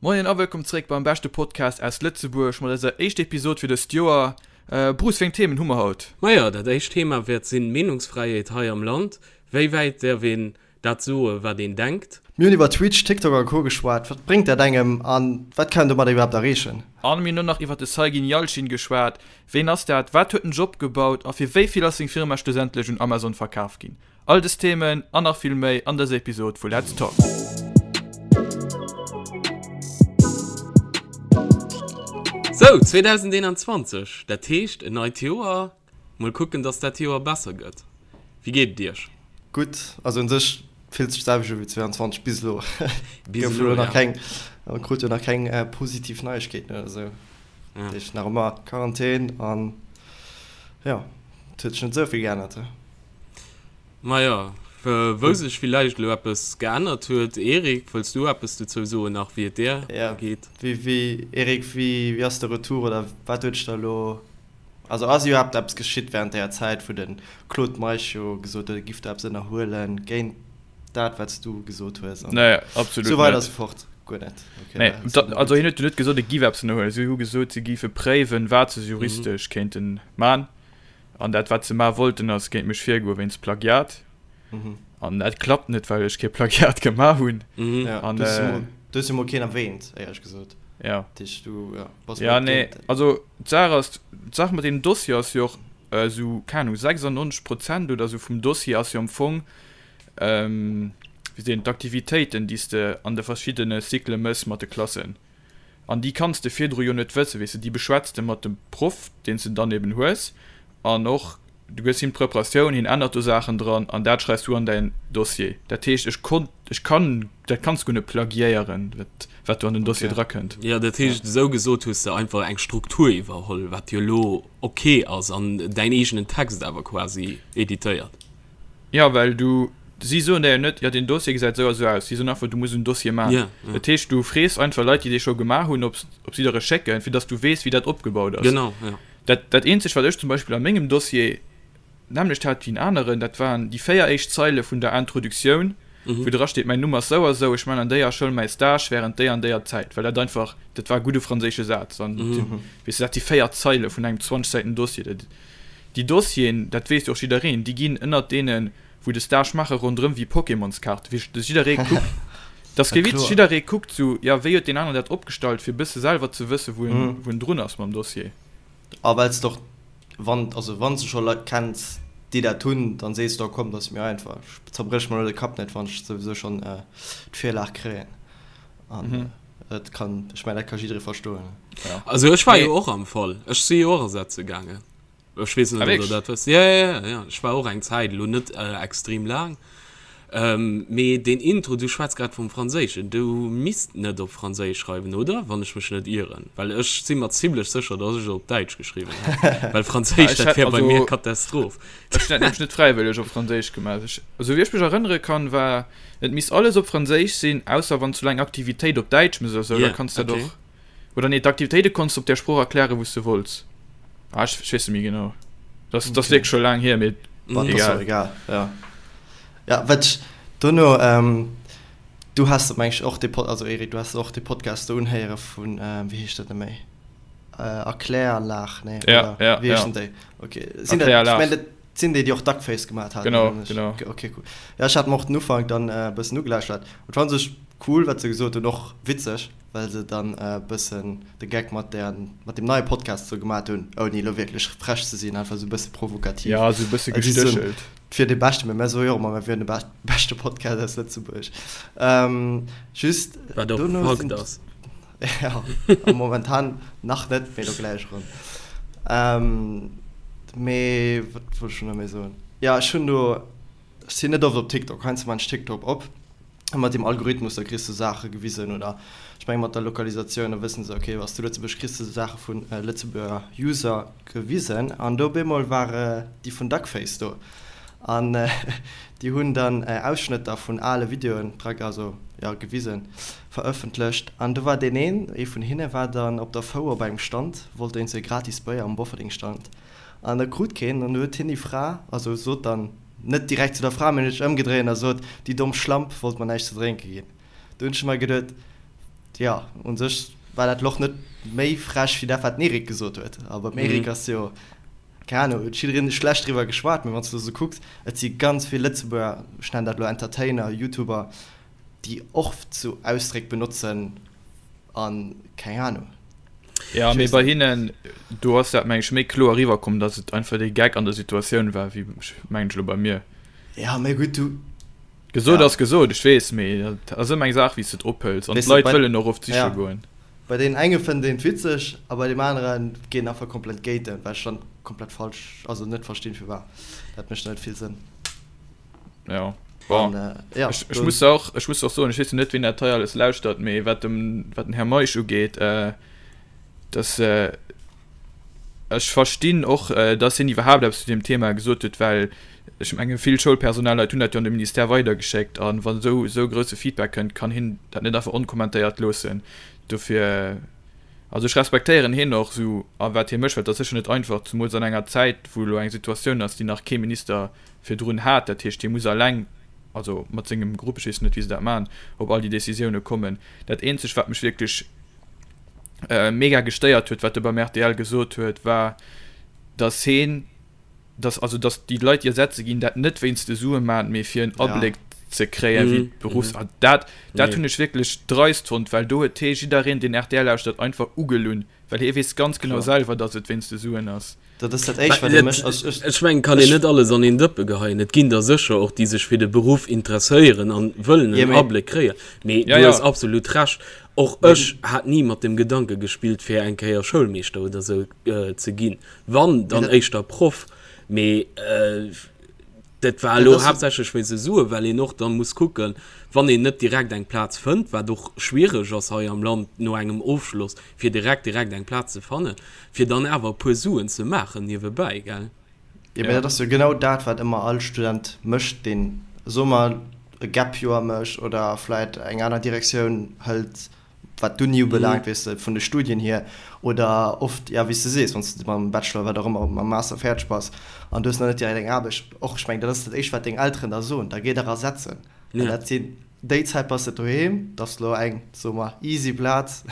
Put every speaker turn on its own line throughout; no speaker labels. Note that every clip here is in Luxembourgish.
Moien a wëllkomm zréck beim beschte Podcast aus Lëtzebuerg mat eiser éischter Episod fir dëst Joer. Bruce, wéi eng Themen hu mer haut?
Majo, dat éischt Thema wäert sinn, Meenungsfräiheet hei am Land. Wéi wäit däerf een dat soen, wat een denkt?
Mir hunn iwwer Twitch, TikTok a Co geschwat. Wat bréngt dat engem a wat kann een domadder iwwerhaapt erreechen?
An mir hunn och nach iwwer de Saygin Yalcin geschwat. Ween ass dat, wat huet en Job gebaut a fir wéi vill ass seng Firma schlussendlech un Amazon verkaf ginn? All des Themen an nach vill méi an dëser Episod vu Let's Talk.
Sou, 2021, dat heescht en neit Joer. Mol kucken, dass dat Joer besser gëtt. Wéi geet et iech?
Gutt, also un sech fillt sech d'selwecht u wéi 22 bis elo. Bis elo, ja. Keng, krut jo nach keng positiv Neiegkeeten oder esou. Dat heescht nach ëmmer Quarantän an jo, et huet sech net esou vill geännert.
Majo, wou sech villäicht elo eppes geännert huet. Eric, wëlls du eppes dozou soen nach, wéi et dir
geet? Jo, wéi, Eric, wéi ass de Retour oder wat huet sech da elo, also ass iwwerhaapt eppes geschitt wärend deeër Zäit, wou de Claude Meisch jo gesot huet, e giff do eppes ënnerhuelen géint dat, wat s du gesot hues
an Nee, absolut
esou weider net. esou fort? Guer net,
okay. Nee, also hien huet jo net gesot, e giff eppes ënnerhuelen. Si hu gesot, si géife préiwen, wat se juristesch kéinte man. An dat wat se ma wollten ass géint mech virgoe wéinst Plagiat. An dat klappt net, well ech kee Plagiat gemaach hunn.
Ja, an, du äh, du hues jo mol keen erwähnt, éierlech gesot.
Ja. Dich, du, ja, bass ja, nee, also d'Saach ass, d'Saach mat deem Dossier ass jo och äh, sou, keng Ahnung, 96 Prozent oder sou vum Dossier ass jo am Fong, ähm, wéi seet een, d'Aktivitéiten, déi s de an de verschiddene Cyclë mëss mat de Klassen. An déi kanns de virdru jo net wëssen, weess de, déi beschwätz de mat dem Proff, deen s de dann eben hues, an och du gëss him d'Preparatioun, hien ännert do Saachen dran an dat schreifs du an däin Dossier. Dat heescht, ech konnt, ech kann, dat kanns guer net plagiéieren, wat, wat do an den Dossier drakënnt.
Jo, dat heescht, esou gesot hues de einfach eng Struktur iwwerholl, wat jo elo ok ass, an däin eegenen Text awer quasi editéiert.
Jo, well du, si soen der jo net, jo deen Dossier gesäit esou a sou aus. Si soen einfach, du muss en Dossier maachen. Ja, ja. Dat heescht, du frees einfach Leit, déi dee scho gemaach hunn, ob ob si der e schécken, fir datt s du weess, wéi dat opgebaut ass.
Genau, ja.
Dat, dat eenzegt, wat ech zum Beispill a mengem Dossier d'nämmlecht hat wéi en aneren, dat waren déi 4 éischt Zeile vun der Introductioun, wou dra steet, mäin Numm ass sou a sou, ech man an déier Schoul mäi Stage während déi an déier Zäit, well dat einfach, dat war e gudde franséische Saz. An, weess de, dat si 4 Zeile vun engem 20 Säiten Dossier. Dat, Déi Dossieren, dat weess jo och jiddereen, déi ginn ënnert deenen, wou de Stage maachen, ronderëm wéi Pokémonskaarten. Wéi dass jidderee kuckt, dat ass kee Witz, jidderee kuckt sou, jo, wéi huet deen aneren dat opgestallt, fir e bësse selwer ze wëssen, wou en, wou en drun ass mam Dossier.
A well s de och, wann, also wann s de scho Leit kenns, déi dat hunn, dann sees de, oh komm, dat ass mir einfach, ech zerbréch mer elo de Kapp net, wann ech souwisou schonn d'Virlag kréien. An dat kann, ech mengen, dat ka jidderee verstoen.
Also ech war jo och am Fall, ech si jo och ersetze gaangen. Ech weess net, ob der dat wësst. Ja, ja, ja, ja. Ech war och eng Zäit, elo net extrem laang. Mee deen Intro, du schwätz grad vum Franséischen, du misst net op Franséisch schreiwen, oder? Wann ech mech net ieren. Well ech si mer zimlech sécher, dass ech et op Däitsch geschriwwen hätt. Well Franséisch, dat wär bei mir Katastroph.
Ech hunn dat nämlech net fräiwëlleg op Franséisch gemaach. Ech, esou wéi ech mech erënnere kann, war, et misst alles op Franséisch sinn, ausser wann s du elo eng Aktivitéit op Däitsch méchs oder sou, da kanns du dat och. Oder nee, d'Aktivitéite konns du op där Sprooch erklären, wou s du wollts. Ah, ech, ech weess net méi genau. Dat, dat ass wierklech scho laang hier, mee
Wat ass och egal. Ja, ja wat ech dono, ähm, du has meng ech och dee Pod, also Eric, du has och dee Podcast do unhéiere vun, ähm, wéi heescht dat net méi? Äh, Erkläranlag, nee,
Ja, oder ja,
wéi
ja.
heeschen déi? Okay, sinn dat, ech
Erkläranlag.
mengen, dat sinn déi, déi och Duckface gemaat haten,
Genau,
oder net?
genau.
Okay, cool. Ja, ech hat mer och den Ufank dann e bëssen ugelauschtert. Et war u sech cool, wat se gesot hunn, och witzeg. well se dann e bëssen de Geck mat der, mat dem neie Podcast sou gemat hunn, ouni elo wierklech frech ze sinn, einfach sou e bësse provokativ.
Ja, sou e bësse gestéchelt.
Et wier dee beschte, mä mär soe jo och ëmmer, mär wieren de beschte Podcast aus Lëtzebuerg. Just
Wat och
dono
Fakt
sinn.
ass.
Ja, momentan nach net, mee elo gläich erëm. Mee wat wollt ech elo nach méi soen? Jo, ech hunn do, ech sinn net oft op TikTok, heiansdo maan ech TikTok op. A mat deem Algorithmus, da kriss de Saache gewisen oder ech menge mat der Lokalisatioun, da wëssen se, okay, bass du Lëtzebuerg, kriss de Saache vu Lëtzebuerger User gewisen. An do op eemol war déi vun Duckface do an déi hunn dann Ausschnëtter vun ale Videoen dra, also jo, gewisen, verëffentlecht. An do war deen een, ee vun hinne war dann op der Fouer op engem Stand, wollt éinst e gratis Béier um Bofferding-Stand an e krut keen. An du huet hien déi Fra, also sot dann, Net direkt zu der Fra, mee huet sech ëmgedréint a sot, Déi domm Schlamp wollt mer näischt ze drénke ginn. Do hunn ech mer geduet, Jo, un sech war dat elo och net méi frech wéi dat, wat den Eric gesot huet. A beim Eric ass jo, keng Ahnung, huet jiddereen schlecht driwwer geschwat, mee wann s de esou kucks, et si ganz vill Lëtzebuerger, ech nennen dat elo Entertainer, Youtuber, déi och sou Ausdréck benotzen a keng Ahnung.
Jo, mee bei hinnen, do ass dat, meng ech, méi kloer eriwwerkomm, datt et einfach dee Gag an der Situatioun war, wéi, mengen ech elo, bei mir.
Jo, mee gutt, du.
Gesot ass gesot, ech weess, mee et ass ëmmer eng Saach, wéi s de et ophëls. An d'Leit wëllen och oft siche goen.
Bei deenen enge fënnt een et witzeg a bei deem anere geet en einfach komplett géint en, wat ech dann komplett falsch, also net verstinn firwat. Dat mécht net vill Sënn.
Jo, bon, ech muss och, ech muss och soen, ech weess jo net, wien dat hei alles lauschtert, mee wat dem, wat den Här Meisch ugeet, dass, Ech verstinn och, dass hien iwwerhaapt eppes zu deem Thema gesot huet, well ech menge vill Schoulpersonalleit hunn dat jo an de Ministère weidergeschéckt. A wann esou esou grousse Feedback kënnt, kann hien dat net einfach onkommentéiert loossen. Dofir, also ech respektéieren hien och esou a wat hie mécht, well et ass sécher net einfach, zemools an enger Zäit, wou elo eng Situatioun ass, déi nach kee Minister virdrun hat. Dat heescht, hie muss eleng, also mat sengem Grupp, ech weess net, wéi se dat maachen, op all déi Décisioune kommen. Dat eenzegt, wat mech wierklech mega gestéiert huet, wat e beim rtl gesot huet, war, dass heen, dass, also dass déi Leit, déi ersetze ginn, dat net wéinst de Sue maachen, mee fir en Abléck ze kréien, wéi d'Beruffs. An dat, dat hunn ech wierklech dreist fonnt, well do huet hee jiddereen, deen rtl lauschtert, einfach ugelunn, well hie weess ganz genau selwer, dass et wéinst de Suen ass.
Dat ass dat Éischt, wat ee mécht.
Also ech, Ech mengen, kann een net alles an een Dëppe geheien. Et ginn der sécher och, déi sech fir de Beruff interesséieren an wëllen en Abléck kréien. Mee du hues absolut Recht. Och ech hat ni mat dem Gedanke gespillt, fir eng Kéier Schoulmeeschter oder sou ze ginn. Wann, dann éischter Proff. Mee dat war elo haaptsächlech wéinst de Suen, well een och da muss kucken, wann een net direkt eng Plaz fënnt, wat och schwiereg ass hei am Land no engem Ofschloss, fir direkt direkt eng Plaz ze fannen, fir dann awer e puer Suen ze maachen niewebäi, gell?
Jo, mä dat ass jo genau dat, wat ëmmer all Student mécht, deen, soe mer, e Gap-Joer mécht oder vläit eng aner Direktioun hëlt, wat d'Uni ubelaangt, weess de, vun de Studien hier. Oder oft, jo, wéi s de sees, wann s de mam Bachelor, wat och ëmmer, mam Master fäerdeg bass an du hues nach net direkt eng Aarbecht, och, ech mengen, dat ass dat Éischt, wat deng Elteren der soen, da géi dach ersetzen. Well dat sinn, déi Zäit bass de doheem, dat ass elo eng, soe mer, easy Plaz,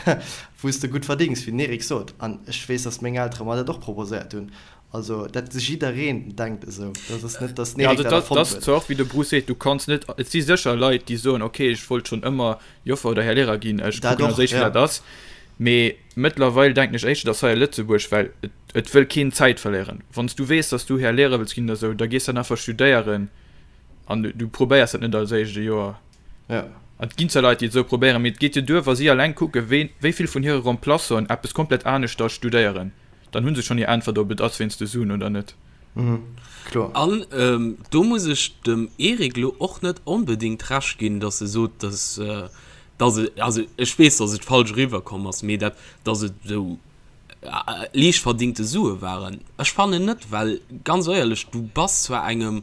wou s de gutt verdéngs, wéi den Eric sot. An ech weess, datt meng Eltere mer dat och proposéiert hunn. Also dat jiddereen denkt esou, dat ass net, datt den Eric dat erfonnt
huet. Dat ass zwar och wéi de Bruce seet, du kanns net, et si sécher Leit, déi soen, ok, ech wollt schonn ëmmer Joffer oder Här Lehrer ginn, ech kucken als éischt wéi dat ass. Mee mëttlerweil denken ech éischter, datt hei a Lëtzebuerg, well et wëll keen Zäit verléieren, wann s du weess, datt s du Här Lehrer wëlls ginn oder esou, da gees dann einfach studéieren an du probéiers dat net als éischt e Joer.
Ja.
An et ginn zwar Leit, déi et esou probéieren, mee et geet jo duer, wa si alleng kucken, wéi wéi vill vun hire Remplaçanten eppes komplett aneschters studéieren. Dann hu se schonn hir Äntwert, ob et ass wéinst de Suen oder net.
Mhm, kloer.
An do muss ech dem Eric elo och net onbedéngt Recht ginn, datt e sot, datt, datt et, also ech weess, datt et falsch eriwwerkomm ass, mee dat, datt et esou liicht verdingte Sue waren. Ech fannen net, well ganz éierlech, du bass zwar engem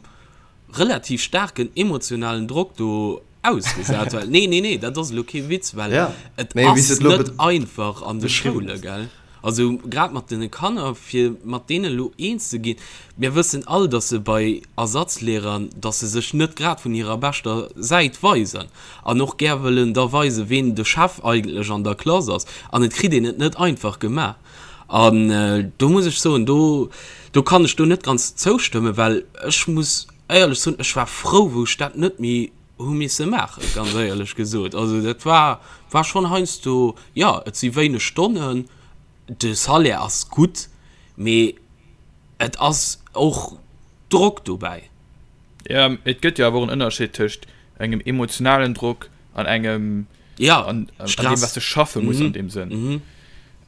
relativ staarken emotionalen Drock do ausgesat, well, nee, nee, nee, dat ass elo kee Witz, well
ja,
et nee, ass net einfach an de Schoule, gell? Also grad mat den Kanner, fir mat deene lo eens ze ginn. Mir wëssen all, dass se bei Ersatzlehrern, dass se sech net grad vun hirer beschter Säit weisen an och gär wëllen da weisen, ween de Chef eigentlech an der Klass ass. An et kritt een et net einfach gemaach. An do muss ech soen, do, do kann ech do net ganz zoustëmmen, well ech muss éierlech soen, ech war frou, wou ech dat net méi hu misse maachen, ganz éierlech gesot. Also dat war, war schonn heiansdo, jo, et si wéineg Stonnen, de Salaire ass gutt, mee et ass och Drock dobäi.
Jo, et gëtt jo awer och en Ënnerscheed tëscht engem emotionalen Drock an engem
ja,
an, an dem, was du schaffe muss mm -hmm. an dem Sënn. Mm -hmm.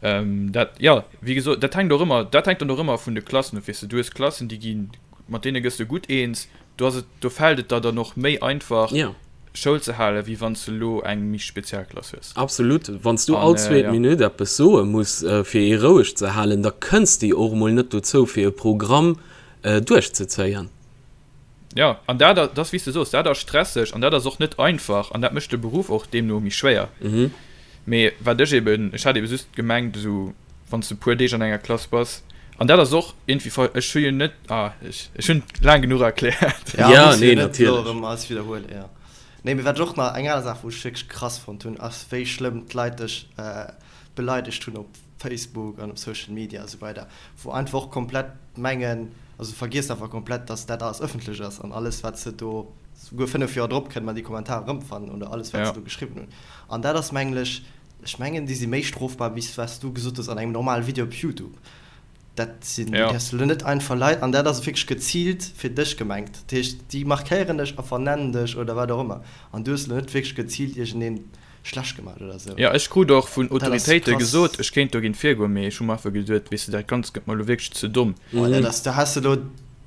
ähm, dat, ja, wie gesot, dat hängt och ëmmer, dat hängt dann och ëmmer vun de Klassen of, weess du, du hues Klassen, déi ginn, mat deene gëss du gutt eens, do ass et, do fält et der dann och méi einfach,
ja.
Schoul ze halen, wéi wann s du elo eng méi speziell Klass hues.
Absolut. Wann s du all äh, zweet ja. Minutt eppes soe muss, äh, fir ee roueg ze halen, da kënns de och mol net dozou, fir e Programm äh, duerchzezéien.
Jo, an dat, dat ass wéi s de soos, dat ass stresseg an dat ass och net einfach an dat mécht de Beruff och deemno méi schwéier. Mee wat ech eben, ech hat ebe just gemengt, esou wann s de e puer Deeg an enger Klass bass, an dat ass och iergendwéi ver, ech hu jo net, ah, ech, ech hunn laang genuch erkläert.
Ja,
Ja,
muss jo
nee,
net elo
natierlech. erëm alles widderhuelen, jo. Nee, mee wat ech och nach, eng aner Saach, wou ech wierklech krass fonnt hunn, ass wéi schlëmm d'Leit dech beleidegt hunn op Facebook an op Social Media a sou weider, wou einfach och komplett mengen, also vergiess einfach komplett, dass dat alles ëffentlech ass an alles wat se do, souguer 5 Joer drop kënne mer déi Kommentarer erëmfannen oder alles wat se do geschriwwen hunn. An dat ass mengen ech, ech mengen déi si méi strofbar wéi wat s du gesot hues an engem normale Video op Youtube. Dat sinn, du däerfs elo net einfach Leit, an dat ass wierklech geziilt fir dech gemengt. Dat heescht, déi markéieren dech a vernennen dech oder wat och ëmmer. An du hues elo net wierklech geziilt iergendeen schlecht gemaach oder esou.
Jo, ech krut och vun Autoritéite gesot, ech kéint dogéint virgoen, mee ech hu mer einfach geduet, weess de, dat Ganzt gëtt mer elo wierklech ze domm.
Oh, dat ass, da häss de elo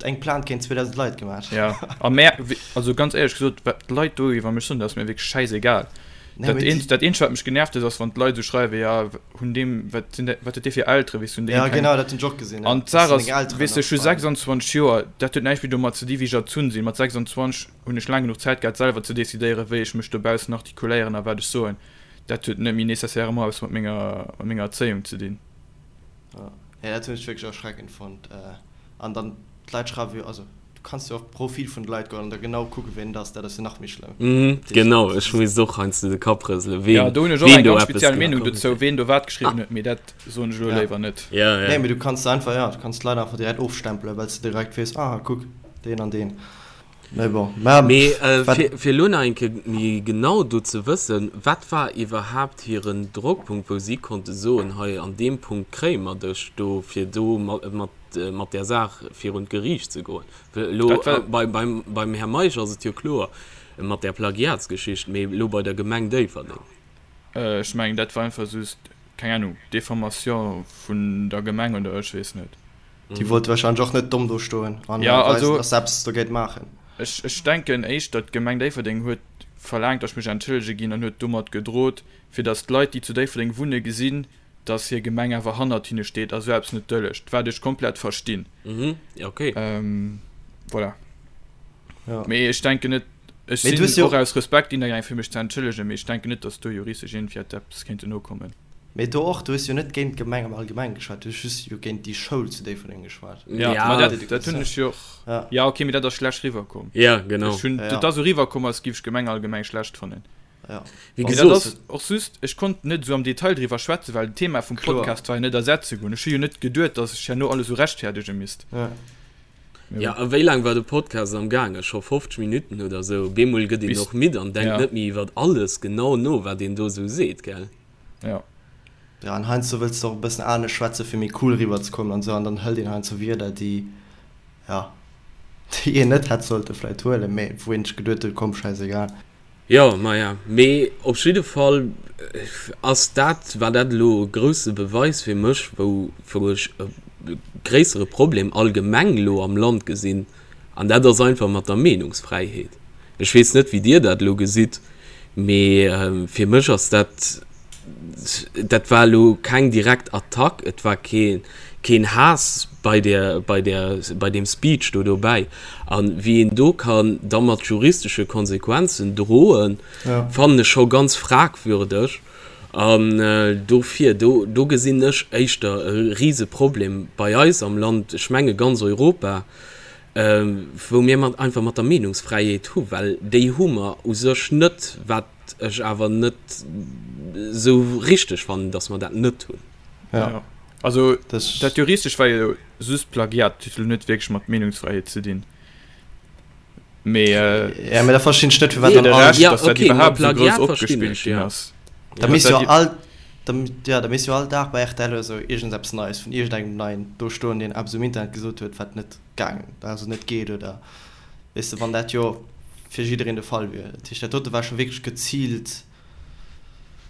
eng Plainte géint 2.000 Leit gemaach.
Jo, a mär, also ganz éierlech gesot, wat d'Leit do iwwer mech soen, dat ass mir wierklech schäisegal. Dat eenzegt, dat eenzegt, wat mech genervt huet, ass, wann d'Leit esou schreiwen, jo, hunn deem, wat sinn dat, wat huet dee fir Elteren, weess du, hunn déi
Ja, keng. genau, dat hunn ech och gesinn,
ja. An d'Saach ass, Elteren weess du, ech hu 26 Joer, dat huet näischt méi domat ze di wéi ech erzunn sinn. Mat 26 hunn ech laang genuch Zäit gehat, selwer ze decidéieren, wéi ech mech dobaussen artikuléieren a wat ech soen. Dat huet net méi nécessairement eppes mat menger, mat menger Erzéiung ze dinn.
Ja, ja, dat hunn ech wierklech erschreckend fonnt. An dann, d'Leit schreiwe jo, also. Du kanns jo op d'Profil vun de Leit goen an da genau kucken, ween et ass. Dat ass jo nach méi
schlëmm. Mhm, genau, ech misst och heiansdo de Kapp rëselen, ween,
Ja, do hunn ech och
ween
eng
do
ganz
eppes
speziell Meenung
gemaach
dozou, ween do wat geschriwwen huet, mee dat soen ech elo
Ja.
léiwer net.
Ja, ja.
Nee, mee du kanns einfach, ja, du kanns d'Leit einfach direkt ofstempelen, well s de direkt weess, ah, kuck, deen an deen. Mee bon,
mä Mee äh, wat, fir, fir elo nach eng Kéier méi genau do ze wëssen, wat war iwwerhaapt hiren Drockpunkt, wou si konnte soen, hei an deem Punkt kréie mer dech do, fir do mat, mat mat där Saach virun d'Geriicht ze goen. Elo beim, beim Här Meisch ass et jo kloer mat där Plagiatsgeschicht, mee elo bei der Gemeng Déifferdeng.
Ech mengen, dat war einfach just, keng Ahnung, Diffamation vun der Gemeng oder ech weess net.
Déi wollte wahrscheinlech och net domm do stoen an weisen, dass se eppes dogéint maachen.
Ech, ech denken éischter, d'Gemeng Déifferdeng huet verlaangt, datt ech mech entschëllege ginn an huet domat gedrot, fir datt d'Leit, déi zu Déifferdeng wunne gesinn, dass hir Gemeng awer hannert hinne steet a sou eppes net dëllegt, wat ech komplett verstinn.
Mhm, okay.
Ähm, voilà. Ja. Mee ech denken net, ech sinn och aus Respekt hinnergaangen, fir mech ze entschëllegen, mee ech denken net, dass do juristesch iergendwéi hätt eppes kéinten nokommen.
Mee do och, du hues jo net géint d'Gemeng am Allgemengen geschwat, du hues just jo géint déi Schoul zu Déifferdeng geschwat.
Ja, ja. Ma dat, dat hunn ech jo och. Ja. Ja, okay, mee dat ass schlecht riwwerkomm.
Ja, genau.
Ech hunn,
Ja, ja.
Dat ass esou riwwerkomm, als giff ech d'Gemeng allgemeng schlecht fannen.
Ja.
Wéi
Mee dat
gesot.
ass och just, ech konnt net esou am Detail driwwer schwätzen, well d'Thema vum
Kloer.
Podcast war jo net ersetze goen. Ech hu jo net geduet, datt ech herno alles esou rechtfäerdege misst.
Ja.
Mee
Ja,
bon.
a wéi laang war de Podcast am gaangen? Scho 50 Minutten oder esou? Op eemol gëtt een
Bis,
och midd an denkt
ja.
net méi iwwert alles genau no, wat een do esou seet, gell?
Ja.
Ja, an heiansdo wëlls de och e bëssen anescht schwätzen, fir méi cool eriwwer ze kommen an esou, an dann hëlt een heiansdo Wierder, déi, ja, déi een net hätt sollte vläicht huelen, mee wou een sech geduet huet, komm, schäisegal.
Jo, maja, mee op jidde Fall ass dat, war dat elo e grousse Beweis fir mech, wou, wou ech e gréissere Problem allgemeng elo am Land gesinn, an dat ass einfach mat der Meenungsfräiheet. Ech weess net, wéi Dir dat elo gesitt, mee fir mech ass dat, dat war elo keng direkt Attack, et war keen, keen Haass bei där, bei där, bei deem Speech do dobäi. A wéi een do kann da mat juristesche Konsequenzen droen, fannen ech scho ganz fragwürdeg. An dofir, do, do gesinn ech éischter e Riseproblem bei eis am Land, ech menge ganz Europa, wou mir mat, einfach mat der Meenungsfräiheet hu, well déi hu mer u sech net, wat ech awer net esou richteg fannen, datt mer dat net hunn.
Ja. Also dat juristesch war jo just Plagiat, dat huet elo net wierklech mat Meenungsfräiheet ze dinn. Mee
Ja, mee da verstinn ech net, firwat
fir
dann
de
all.
Rescht,
Ja,
datt dat
okay, ma
iwwerhaapt esou grouss
Plagiat verstinn
opgespillt
ech,
ginn
ja.
ass.
Da
Datt
misst
dat
jo all, da, ja, da misst jo all Dag bei rtl oder esou iergendeppes Neies vun iergendengem Neien do stoen, deen eppes um Internet gesot huet, wat net gaangen, also net geet oder, weess de, wann dat jo fir jiddereen de Fall wier. Dat heescht, dat dote war scho wierklech geziilt,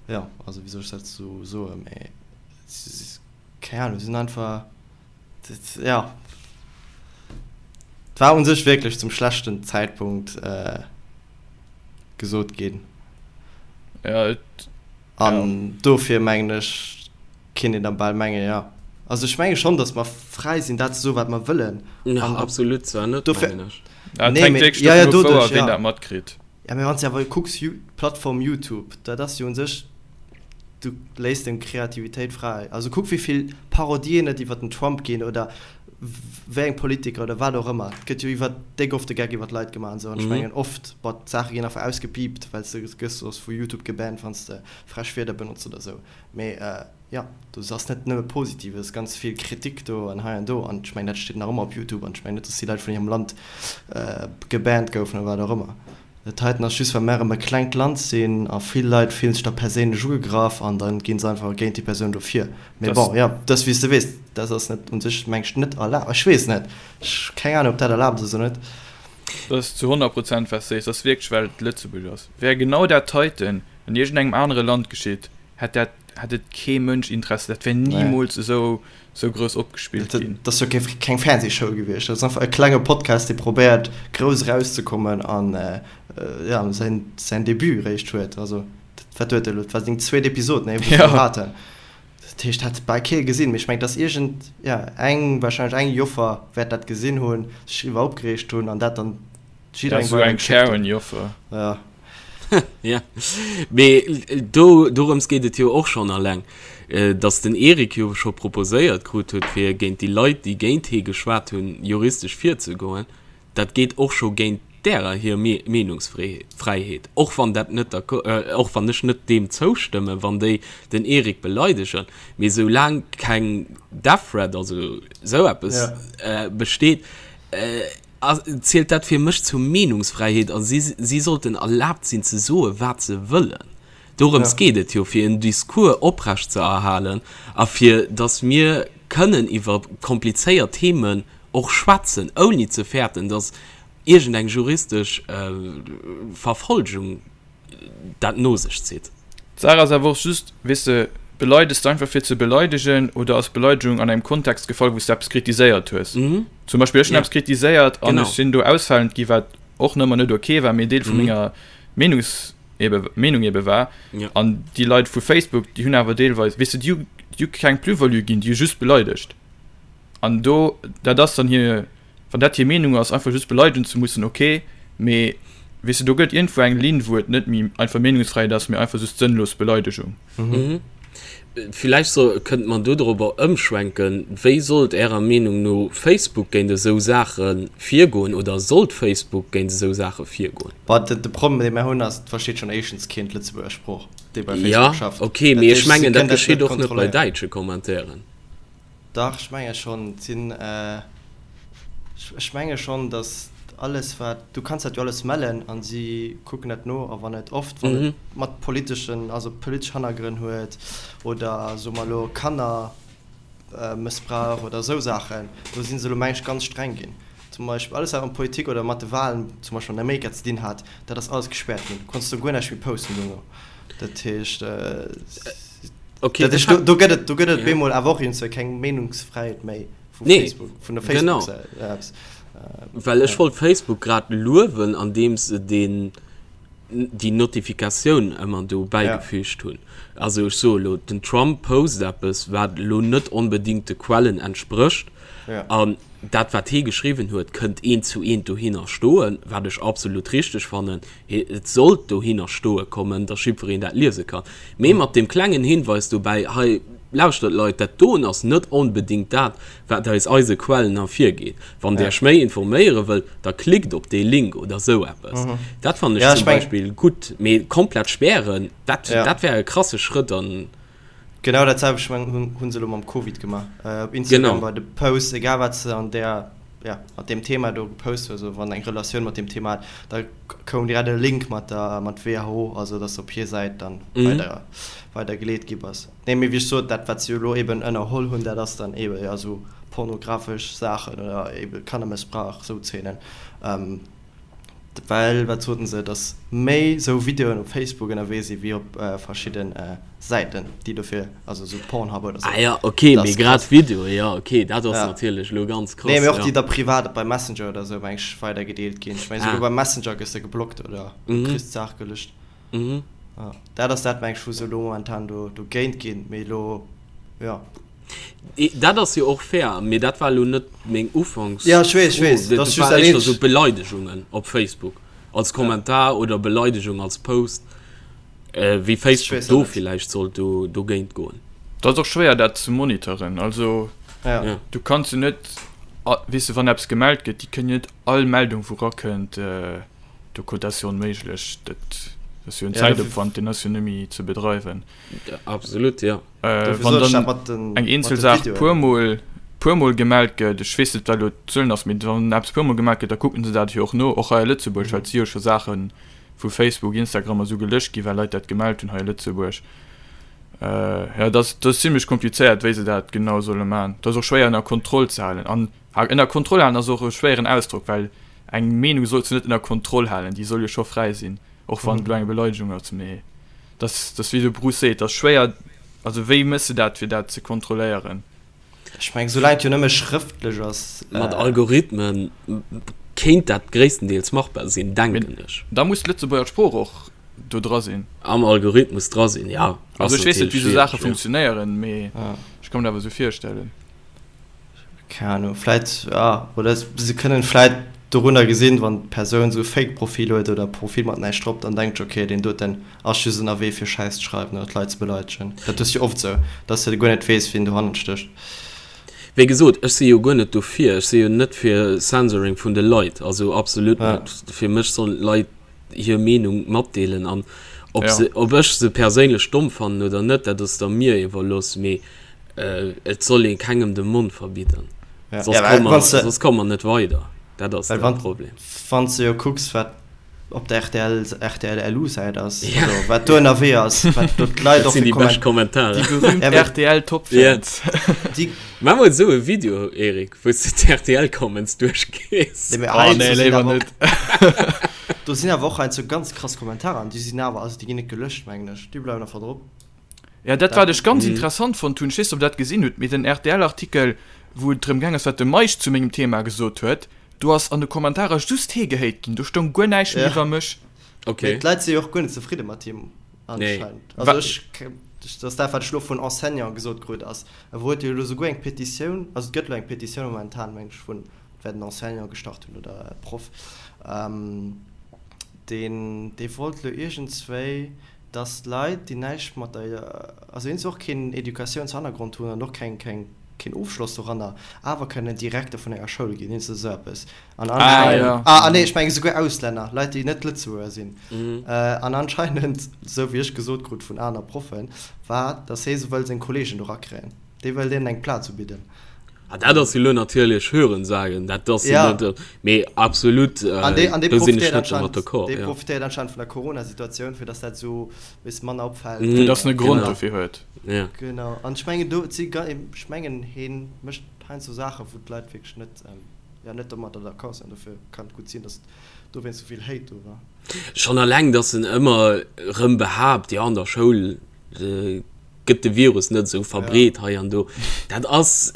jo, also wéi soll ech dat esou soen, mee keng Ahnung, si sinn einfach, jo, et war u sech wierklech zum schlechten Zäitpunkt gesot ginn.
Ja, et,
An dofir mengen ech, kinnt een da bal mengen, jo. Also ech menge schonn, datt mer fräi sinn, dat ze soen, wat mer wëllen.
Ja, absolut zwar net, mengen ech.
Ja, et
Nee,
hänkt
mee,
wierklech
ja, ja,
dovun of, wou a
doduerch,
ween
ja.
dat matkritt.
Ja, mee wann s de awer kucks, d'Plattform YouTube, dat ass jo un sech, du léiss deng Kreativitéit fräi. Also kuck, wéi vill Parodien et iwwer den Trump ginn oder. wéi eng Politiker oder wat och ëmmer, et gëtt jo iwwer déck oft de Geck iwwer d'Leit gemaach an esou, an ech mengen oft, bon, d'Saache ginn einfach ausgepiipt, well s de gëss soss vu Youtube gebannt, wann s de frech Wierder benotz oder esou, mee jo, do ass net nëmme Positives, ganz vill Kritik do an hei an do, an ech mengen dat steet nach ëmmer op Youtube, an ech mengen net, datt déi Leit vun hirem Land gebannt goufen oder wat och ëmmer. Dat heiten ass just well mär erëm e klengt Land sinn a vill Leit fillen sech da perséinlech ugegraff an da ginn se einfach géint déi Persoun do vir. Mee bon, jo, dat ass wéi s de weess, dat ass net un sech meng ech net erlaabt. Ech weess net, ech hu keng Ahnung ob dat erlaabt ass oder net.
Dat ass zu 100 Prozent wat s de sees, dat ass wierklech well et Lëtzebuerg ass. Wär genau dat heiten an iergendengem anere Land geschitt, hätt dat hätt et kee Mënsch Interesse, dat wär nimools esou esou grouss opgespillt
ginn. Dat ass jo keng Fernsehshow gewiescht, dat ass einfach e klenge Podcast, dee probéiert grouss erauszekommen an jo säin säin Debut réischt huet. Also wat huet e elo, dat war seng zweet Episod, nee, wou se elo haten. Dat heescht, hat bal kee gesinn, mee ech mengen, dass iergend, jo eng, wahrscheinlech eng Joffer wäert dat gesinn hunn, sech driwwer opgereegt hunn an dat dann
jidderengem weidergeschéckt hunn. Esou eng Karen-Joffer.
Ja.
Ja, mee do, dorëms geet et jo och schonn alleng, datt den Eric jo scho proposéiert krut huet, fir géint déi Leit, déi géint hee geschwat hunn, juristesch virzegoen. Dat geet och scho géint därer hir Meenungsfräiheet, och wann dat net, och wann ech net deem zoustëmmen, wann déi den Eric beleidegen. Mee soulaang keng Death Threat, also esou eppes, besteet, zielt dat fir mech zur Meenungsfräiheet a si si sollten erlaabt sinn ze soe wat se wëllen. Dorëms geet et jo, fir en Discours oprecht ze erhalen a fir datt mir kënnen iwwer komplizéiert Themen och schwätzen, ouni ze fäerten, datt iergendeng juristesch Verfolgung dat no sech zitt.
D'Saach ass awer och just, weess de, beleides de einfach fir ze beleidegen oder ass d'Beleidegung an engem Kontext gefall, wou s de eppes kritiséiert hues? Zum Beispill ech hunn eppes kritiséiert an ech sinn do ausfalend gi, wat och nëmmer net ok war, mee Deel vu menger Meenungs, ebe Meenung ebe war. An déi Leit vu Facebook, déi hunn awer deelweis, weess de, déi hu keng Plus-value ginn, déi hu just beleidegt. An do, dat ass dann hir. Wann dat hir Meenung ass, einfach just beleidegen ze mussen, ok, mee weess de, do gëtt iergendwou eng Linn, wou et net méi einfach Meenungsfräiheet ass, mee einfach just sënnlos Beleidegung.
Villäicht so, kënnt mer do dorobber ëmschwenken, Wéi sollt Ärer Meenung no Facebook géint esou Saache virgoen oder sollt Facebook géint esou Saache virgoen?
Bah, de Problem, dee mer hunn, ass, et versteet schonn éischtens keen d'Lëtzebuerger Sprooch,
dee bei Facebook schafft. Jo, ok, mee ech mengen, dat geschitt och net bei däitsche Commentairen.
Dach, ech menge schonn. Et sinn, ech menge schonn, datt alles wat, du kanns dat jo alles mellen a si kucken dat no. A wann et oft, wann et mat politeschen, also politesch Hannergrënn huet oder soe mer elo Kannermëssbrauch oder esou Saachen, do si se elo meng ech ganz streng ginn. Zum Beispill alles wat mat Politik oder mat de Wahlen zum Beispill an Amerika ze dinn hat, dat ass alles gespäert ginn. Du konns do guer näischt méi posten dono. Dat heescht. Okay, dat ist, do, do gëtt et, do gëtt et ja. bemol awer och iergendwéi keng Meenungsfräiheet méi vu nee, Facebook, vun der
Facebook genau. Apps. Äh, Well ech ja. wollt Facebook grad luewen, andeem se den déi Notifikatioun ëmmer do bäigefügt ja. hunn. Also ech soe lo, den Trump post eppes, wat lo net onbedingt de Quellen entsprécht. Ja. An dat wat hee geschriwwen huet, kënnt eent zu eent dohinner stoen, wat ech absolut richteg fannen. Et sollt dohinner stoe kommen, datt jiddwereen dat liese kann. Mee mat deem klengen Hinweis dobäi, hei, lauschtert Leit, dat doen ass net onbedéngt dat, wat aus eise Quellen ervirgeet. Wann Der Iech méi informéiere wëllt, da klickt op dee Link oder esou eppes. Dat fannen ech zum Beispill gutt. Mee komplett spären, dat, dat wär e krasse Schrëtt an.
Genau dat selwecht hu se elo mam Covid gemaach. Op Instagram bei de Posts, egal wat se an där, ja, mat deem Thema do gepost hues, oder wann eng Relatioun mat deem Thema hat, da koum direkt e Link mat der, mat WHO, also dass op hir Säit dann weider, weider geleet gi bass. Nee, mee wéi ech sot, dat wat se jo elo eben ënnerholl hunn, dat ass dann eben, ja, esou pornografesch Saachen oder eben Kannermëssbrauch, esou Zeenen. Well, wat soten se, datt méi sou Videoen op Facebook ënnerwee si wéi op verschidde Säiten, déi dofir, also sou Pornhub oder
sou. Ah ja, ok, mee grad Videoe, jo, ok, dat ass natierlech elo ganz
krass. Nee, mee och déi da privat bei Messenger oder sou, meng ech, weidergedeelt ginn. Ech meng, souguer beim Messenger gëss de geblockt oder kriss d'Saach gelöscht. Dat ass dat, meng ech, wou se elo momentan do dogéint ginn, mee elo, jo.
Dat ass jo och fair, mee dat war elo net meng Ufanks.
Ja, ech weess, ech weess.
Dat ass just dat eenzegt. Esou Beleidegungen op Facebook als Kommentar oder Beleidegung als Post, wéi Facebook do villäicht sollt do dogéint goen.
Dat ass och schwéier dat ze monitoren. Also du kanns jo net. Weess de, wann eppes gemellt gëtt, déi kënnen jo net all Meldung, wou erakënnt, do dat ass jo onméiglech. Dat ass jo en Zäitopwand, deen ass jo net méi ze bedreiwen.
Absolut, jo.
Wann dann eng eenzel Saach puermol, puermol gemellt gëtt, ech weess net, wat elo d'Zuelen ass, mee wann eppes puermol gemellt gëtt, da kucken se dat jo och no, och hei a Lëtzebuerg, well et si jo scho Saache vu Facebook, Instagram a sou gelécht ginn, well Leit dat gemellt hunn hei a Lëtzebuerg. Jo, dat ass, dat ass zimlech komplizéiert, wéi se dat genau solle maachen. Dat ass och schwéier ënner Kontroll ze halen. An ënner Kontroll halen ass och e schwéieren Ausdrock, well eng Meenung solls du net ënner Kontroll halen, déi soll jo scho fräi sinn, och wann et elo eng Beleidegung ass. Mee dat ass, dat ass wéi de Bruce seet, dat ass schwéier, also wéi méchs de dat, fir dat ze kontrolléieren?
Ech mengen, soulaang et jo nëmme schrëftlech ass.
Mat Algorithmen kéint dat gréisstendeels machbar sinn, denken ech.
Da muss d'Lëtzebuerger Sprooch och do dra sinn.
Am Algorithmus dra sinn, ja.
Also ech weess net, wéi esou Saache funktionéieren, mee ech ka mir dat awer esou virstellen.
Keng Ahnung, vläit, ja, oder se kënnen vläit dorunner gesinn, wann d'Persoun esou e Fake-Profil huet oder e Profil mat näischt drop, dann denkt ech, okay, deen doten ass just ënnerwee fir Schäiss ze schreiwen oder d'Leit ze beleidegen. Dat hues du jo oft esou, dass de guer net weess, wien dohannert stécht.
Wéi gesot, ech si jo guer net dofir, ech si jo net fir Censoring vun de Leit, also absolut net. Fir mech sollen d'Leit hir Meenung matdeelen an ob se, ob ech se perséinlech domm fannen oder net, dat ass da mir iwwerlooss, mee et soll ee kengem de Mond verbidden, soss komme mer, soss komme mer net weider, dat ass de Problem.
Wann s de jo kucks, wat op der rtl, RTL-LU-Säit ass, also wat do ënnerwee ass, wat do d'Leit och
fir Kommentaren.
Déi berühmt RTL-Top-Fans.
Maach mol esou e Video, Eric, wou s de d'RTL-Comments duerchgees.
Oh nee, léiwer net. Do sinn awer och heiansdo ganz krass Kommentarer an déi sinn awer, also déi ginn net gelöscht, mengen ech, déi bleiwen einfach drop.
Ja, dat wat ech ganz interessant fonnt hunn, ech weess net, ob der dat gesinn hutt, mee den RTL-Artikel, wou et drëm gaang ass, wat de Meisch zu mengem Thema gesot huet, do ass an de Kommentarer just hee gehéit ginn, do stoung guer näischt méi iwwer mech.
Okay. Mee d'Leit si jo och guer net zefridde mat him anscheinend. Also ech, dat ass dat, wat ech elo vun Enseignanten gesot krut ass, e huet jo elo souguer eng Petitioun, also et gëtt elo eng Petitioun momentan, meng ech, vun, et wäert en Enseignant gestart hunn oder e Proff, deen, dee wollt elo iergendswéi, dass Leit, déi näischt mat der, also eens och keen Educatiounshannergrond hunn an och keng, keng, keen Ofschloss doranner, awer kënnen Direkter vun enger Schoul ginn, eens esou eppes. An anscheinend, ah, ah nee, ech mengen esouguer Auslänner, Leit, déi net Lëtzebuerger sinn. An anscheinend, esou wéi ech gesot krut vun aner Proffen, war, dass hee se wëll seng Kollegen do rakréien. Dee wëll deenen eng Plaz ubidden.
Ah, dat ass jo lo natierlech Hörensagen, dat ass jo net, mee absolut, do sinn ech net domat
d'accord. Dee profitéiert anscheinend vun der Corona-Situatioun, fir dass dat esou e bësse manner opfält.
Fir dass en e Grond dofir huet.
Genau, an ech mengen do, et si, ech mengen hee mécht heiansdo Saachen, wou d'Leit wierklech net, jo, net domadder d'accord sinn. Dofir kann et gutt sinn, dass dowéinst esou vill Hate do war.
Schonn eleng, dass en ëmmer erëm behaapt, jo an der Schoul gëtt de Virus net esou verbreet hei an do. Dat ass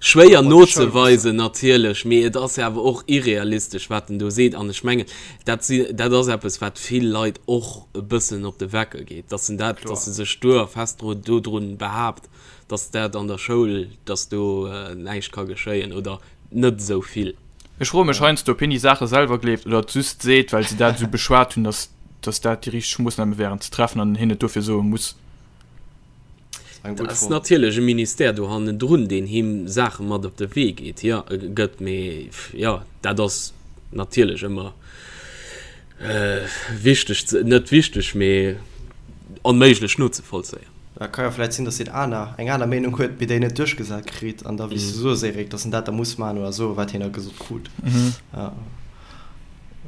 schwéier nozeweisen natierlech, mee et ass awer och irrealistesch, wat en do seet. An ech mengen, dat si, dat ass eppes, wat vill Leit och e bëssen op de Wecker geet, dass en dat, dass e sech stur a fest dru dodrun behaapt, dass dat an der Schoul, dass do näischt ka geschéien oder net esou vill.
Ech froe mech heiansdo, ob hien déi Saache selwer gleeft oder et just seet, well se dat esou beschwat hunn, dass dass dat déi richteg Moossname wären ze treffen an hien et dofir soe muss.
Et ass natierlech e Ministère do hannendrun, deen him Saache mat op de Wee geet, jo, gëtt, mee jo, dat ass natierlech ëmmer wichteg ze, net wichteg, mee onméiglech nozevollzéien.
Et ka jo vläicht sinn, datt hien aner, eng aner Meenung huet, mee déi net duerchgesat kritt an da, wéi s du soos, Eric, datt en dat da muss maachen oder soen, wat hien da gesot krut.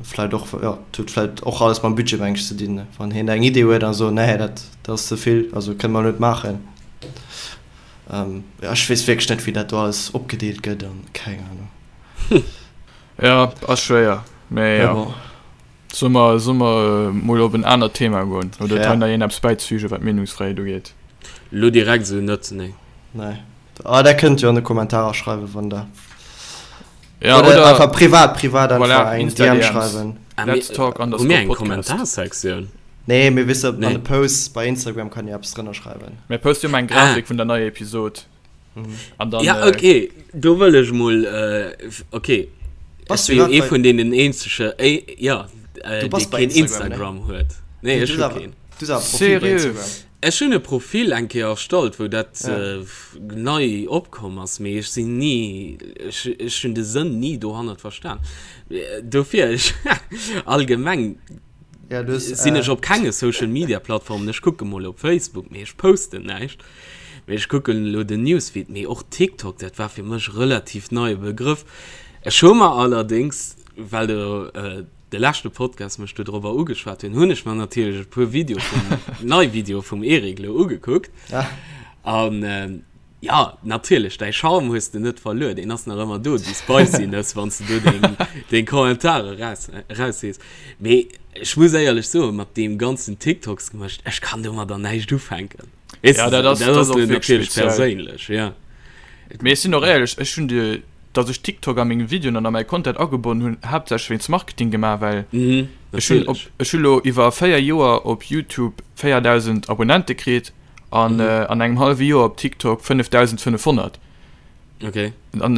Vläit och, jo, et huet vläit och alles mam Budget, meng ech, ze dinn. Wann hien eng Idee huet a sot, nee, dat ass ze vill, also kënne mer net maachen. Jo, ech weess wierklech net, wéi dat do alles opgedeelt gëtt an keng Ahnung.
Jo, ass schwéier, mee jo. Solle mer, solle mer mol op en anert Thema goen? Oder huet hei nach een eppes bäizefügen, wat d'Meenungsfräiheet ugeet?
Elo direkt esou net, nee.
Nee. Ah, der kënnt jo an de Kommentarer schreiwen, wann der. Ja, oder, oder einfach privat, privat einfach voilà, eng DM schreiwen.
Ah, Let's talk
underscore Hu mir
eng Kommentarsektioun?
Nee, mir wisse nee. an de Posts bei Instagram kann ihr eppes drënner schreiwen.
Mir poste jo eng Grafik ah. vun der neier Episode.
Mhm. An dann, ja, äh, okay, do wëll ech mol äh, okay. Bass du jo ee vun deenen eenzege äh, ja, äh, dee keen Instagram, Instagram huet. Nee, ech hu keen.
Du ass Profil bei Instagram.
Ech hunn e Profil eng Kéier erstallt, wou dat nei opkomm ass, mee ech sinn ni, ech hunn de Sënn ni dohannert verstan. Dofir, ech allgemeng sinn ech op kenge Social Media Plattformen. Ech kucke mol op Facebook, mee ech posten näischt. Mee ech kucken elo den Newsfeed, mee och TikTok, dat war fir mech relativ neie Begrëff. Ech hu mer allerdéngs, well de de leschte Podcast mech do drobber ugeschwat hunn, hunn ech mer natierlech e puer Video vum, nei Video vum Eric lo ugekuckt. Ja. An ähm, ja, natierlech, däi Charme hues de net verluer, deen ass nach ëmmer do, déi Spiciness, wann s de do deng, deng Kommentare raus, raushees. Mee ech muss éierlech soen, mat deem ganzen TikToks gemëscht, ech kann domadder näischt ufänken. Weess
Ja,
de,
dat ass,
dat
dat
ass
ass och wierklech
natierlech
speziell.
perséinlech, ja.
Mee ech sinn och éierlech, ech hunn de dass ech TikTok a meng Videoen an a mäi Content agebonnen hunn, haaptsächlech wéinst Marketing gemaach, well
Mhm,
ech hunn op,
natierlech.
ech hu lo iwwer 4 Joer op YouTube 4.000 Abonnente kritt an
Mhm.
an engem hallwe Joer op TikTok 5.500.
Okay.
An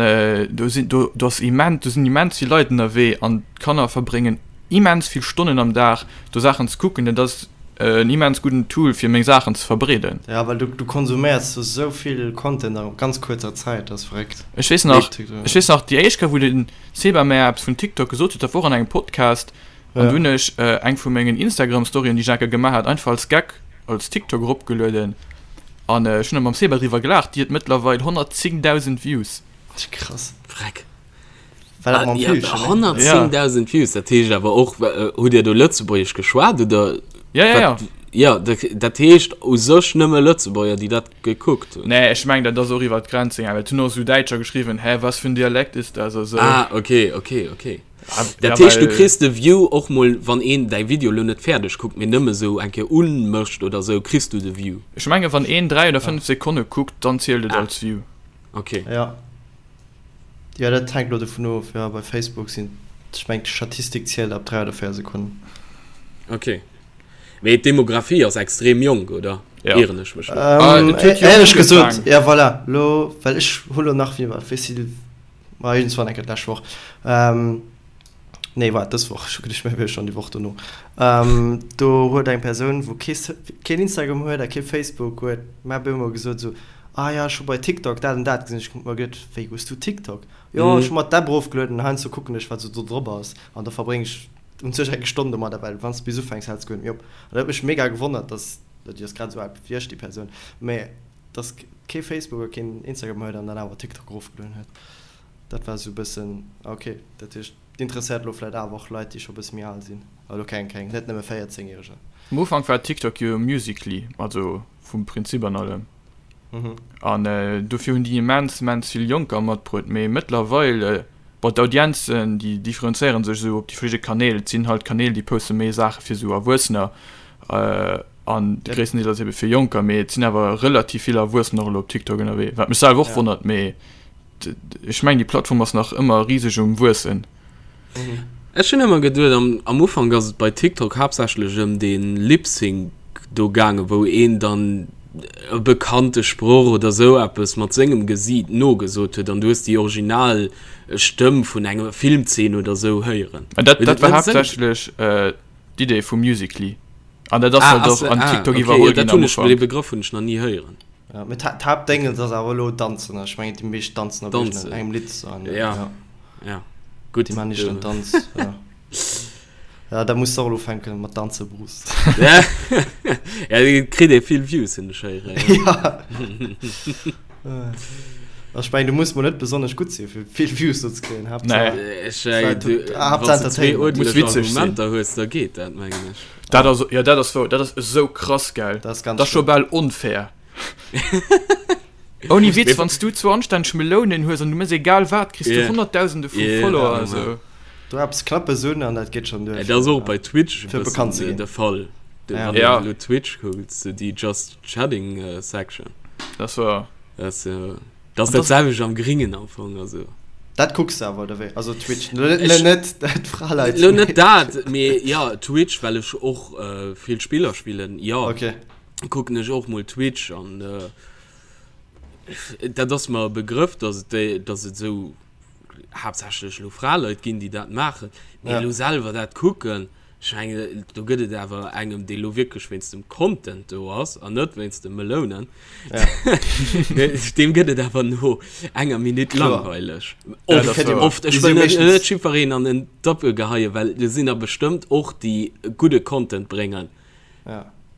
do sinn, do, do ass immens, do sinn immens vill Leit ënnerwee an d'Kanner verbréngen immens vill Stonnen am Dag do Saachen ze kucken. Dat ass en immens gudden Tool fir meng Saachen ze verbreeden.
Ja, well du, du konsuméiers do sou vill Content a ganz kuerzer Zäit, dat ass verréckt.
Ech weess nach, ech weess nach déi éischt Kéier wou de Seba mär eppes vun TikTok gesot huet, dat wor an engem Podcast an du hunn ech eng vu mengen Instagram Storyen déi ech eng Kéier gemaach hat einfach als Gag als TikTok eropgelueden an ech hunn da mam Seba driwwer gelaacht, déi huet mëttlerweil 110.000 Views.
Krass.
Vreck.
War dat mam
Ja,
Villchen, ne?
110.000 Views, dat heescht awer och, hutt Dir do Lëtzebuergesch geschwat oder?
Ja, ja, ja.
Wat, ja, dat heescht u sech nëmme Lëtzebuerger, déi dat gekuckt hunn.
Nee, ech mengen, dat ass och iwwer d'Grenzen gaangen, well et hunn och esou Däitscher geschriwwen, Hä, was für ein Dialekt ist das? A sou.
Ah, okay, okay, okay.
Ja,
Dat heescht, du
well.
kriss de View och mol, wann een däi Video lo net fäerdeg kuckt, mee nëmme sou eng Kéier unmécht oder sou, kriss du de View.
Ech mengen, wann een 3 oder 5 Sekonne kuckt, dann zielt et
Ah.
als View.
Okay.
Ja. Jo, dat hänkt elo dovun of. Jo, bei Facebook sinn, ech mengen d'Statistik zielt ab 3 oder 4 Sekonnen.
Ok. Mee d'Demografie ass extrem jonk, oder?
Ja.
Ieren ech mech
lo? Ah, et huet jonk Éierlech gesot, ja voilà, lo, well ech hu lo nach, wéi war, wéi si, ma iergendswann eng Kéier d'lescht Woch, nee waart, dës Woch, ech hu geduecht, mir wier schonn déi Woch dono, do huet eng Persoun, wou kee, keen Instagram huet a kee Facebook huet, mer op eemol gesot esou, Ah ja, ech hu bei TikTok dat an dat gesinn. Ech hu mer geduet, wéi hues du TikTok? Jo, ech hu mer d'App erofgelueden an heiansdo kucken ech, wat sou do drop ass. An da verbréng ech un sech eng Stonn domadder, well wann s de bis ufänks, häls de guer net méi op. An dat huet mech mega gewonnert, dass, déi ass grad esou al wéi ech, déi Persoun, mä dass kee Facebook a keen Instagram huet an dann awer TikTok erofgelueden huet. Dat war esou e bëssen, ah ok, dat heescht, et interesséiert elo vläicht awer och Leit, déi scho e bësse méi al sinn. Elo keng, keng, net nëmme 14 Järeger.
Am Ufank war TikTok jo Musical.ly, also vum Prinzip an allem. An dofir hunn déi immens, immens vill Jonker matbruet. Mee mëttlerweil, bon, d'Audienzen, déi differenzéiere sech esou op déi verschidde Kanäl. Et sinn halt Kanäl, déi poste méi Saache fir esou Erwuessener an de gréissten Deel ass ebe fir Jonker. Mee et sinn awer relativ vill Erwuessener och elo op TikTok ënnerwee, wat mech selwer och wonnert. Mee ech mengen, déi Plattform ass nach ëmmer riseg um Wuessen.
Ech hunn ëmmer geduet, am, am Ufank ass et bei TikTok haaptsächlech ëm dee Lip-Sync do gaangen, wou een dann e bekannte Sproch oder sou eppes mat sengem Gesiit nogesot huet an du hues déi original Stëmm vun enger Filmzeen oder sou héieren.
Mä dat, dat war haaptsächlech d'Idee vu Musical.ly. An dat ass
Ah,
halt
ass,
och an
ah,
TikTok
okay,
iwwerholl
jo, dat
ginn am
hunn ech,
Ufank.
dee Begrëff hunn ech nach ni héieren.
Ja, mee d'Haaptdéngens ass awer elo Danzen. Ech mengen, déi meescht danzen op
Danzen.
iergendengem Lidd. An,
Ja.
ja.
Ja, gutt.
Déi maachen nicht den Tanz. Ja. Ja, da muss de och elo ufänken mat danze, Bruce.
Ja, ja, et kritt ee vill Views, hunn ech héieren.
Ja. Ech mengen, du muss mol net besonnesch gutt sinn, fir vill Views do ze kréien. Haaptsaach,
Nee.
Ech, äh,
Haaptsaach
du,
Haaptsaach
wann s du zwee
Entertainment.
Muss
uerdentlech
witzeg sinn.
Argumenter hues, da geet dat, mengen ech.
Dat ass, ja, dat ass wou, dat ass esou krass, gell?
Dat ass ganz
Dat ass scho
schlëmm.
bal onfair. Ouni Witz, wann s du zwou anstänneg Melounen hues an du méchs egal wat, kriss du
Yeah.
Honnertdausende vu
Yeah,
Follower.
ja,
Also.
Du eppes Knappes un an dat geet schonn duer,
Dat ass
fir,
och bei Twitch e
fir bekannt ze
bëssen
ginn.
de Fall. Du,
Ja.
wann
Ja.
du elo Twitch kucks, sou déi Just Chatting Section.
Dat war.
Dat ass jo, dat ass
An
dat
dat-
selwecht am Gringen am Fong, also.
Dat kucks de awer, oder wéi? Also Twitch, lo net,
Ech-
net d'Fraleit.
Lo net dat, mee ja, Twitch, well ech och vill Spiller spillen, jo.
Okay.
Kucken ech och mol Twitch an dat ass mer e Begrëff, dass et déi, dass et esou haaptsächlech elo Fraleit ginn, déi dat maachen. Mee elo selwer dat kucken. Ech mengen, do gëtt et awer engem, dee lo wierklech wéinst dem Content do ass an net wéinst de Melounen, deem gëtt et awer no enger Minutt langweileg. Oft, oft. Ech wëll net, net jiddwereen an en Doppel geheien, well do sinn der bestëmmt och, déi gudde Content bréngen.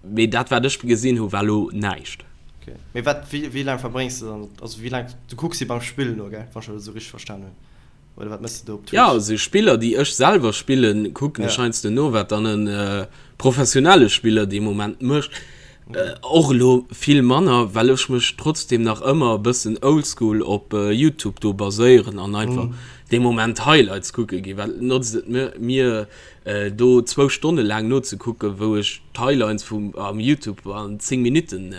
Mee dat, wat ech gesinn hu, war lo näischt.
Okay. Mee wat, wéi, wéi laang verbréngs de dann, also wéi laang, du kucks si beim Spillen no, gell, wann ech dat esou richteg verstan hunn? Oder wat mëss de do op
Twitch? Ja, also Spiller déi ech selwer spillen, kucken ech heiansdo no, wat dann e professionelle Spiller dee Moment mécht. Och elo vill manner, well ech mech trotzdem nach ëmmer e bëssen oldschool op Youtube do baséieren an einfach dee Moment Highlights kucke ginn. Wat notzt et mir do zwou Stonne laang nozekucken, wou ech d'Highlights vum am Youtube an 10 Minutten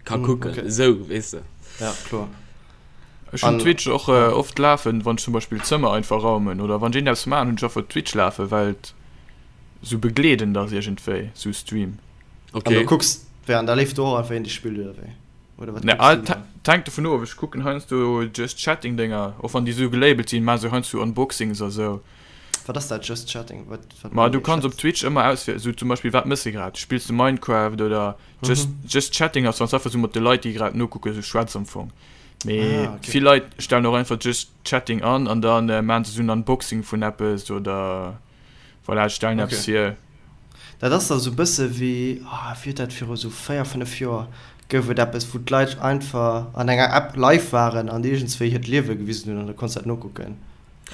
ka kucken, esou weess de.
Ja, kloer.
Ech hunn Twitch och oft lafen, wann ech zum Beispill d'Zëmmer einfach raumen oder wann ech iergendeppes maachen, hunn ech einfach Twitch lafen, well et sou begleedend ass iergendwéi, sou Stream.
Okay. An du kucks wéi an da leeft do och einfach een dee spillt oder wéi?
Oder wat kucks du dann? Et hänkt dovun of, ech kucken heiansdo Just Chatting Dénger, och wann déi sou gelabelt sinn, maache se heiansdo Unboxings a sou.
Wat ass dat Just Chatting? Wat
wat Ma du kanns op Twitch ëmmer auswielen, sou zum Beispill wat mëss de grad? Spills de Minecraft oder Just, just Chatting ass wann s einfach sou mat de Leit déi grad nokucken sou schwätz am Fong. Mee ah, okay. vill Leit stellen och einfach Just Chatting an an dann äh, maan se sou en Unboxing vun eppes oder voilà, stellen okay. eppes hier.
Dat ass da sou bësse wéi, ah, wéi huet dat viru sou 4, 5 Joer gouf et eppes wou d'Leit einfach an enger App live waren an iergendswéi hiert Liewe gewisen hunn an da konns dat nokucken.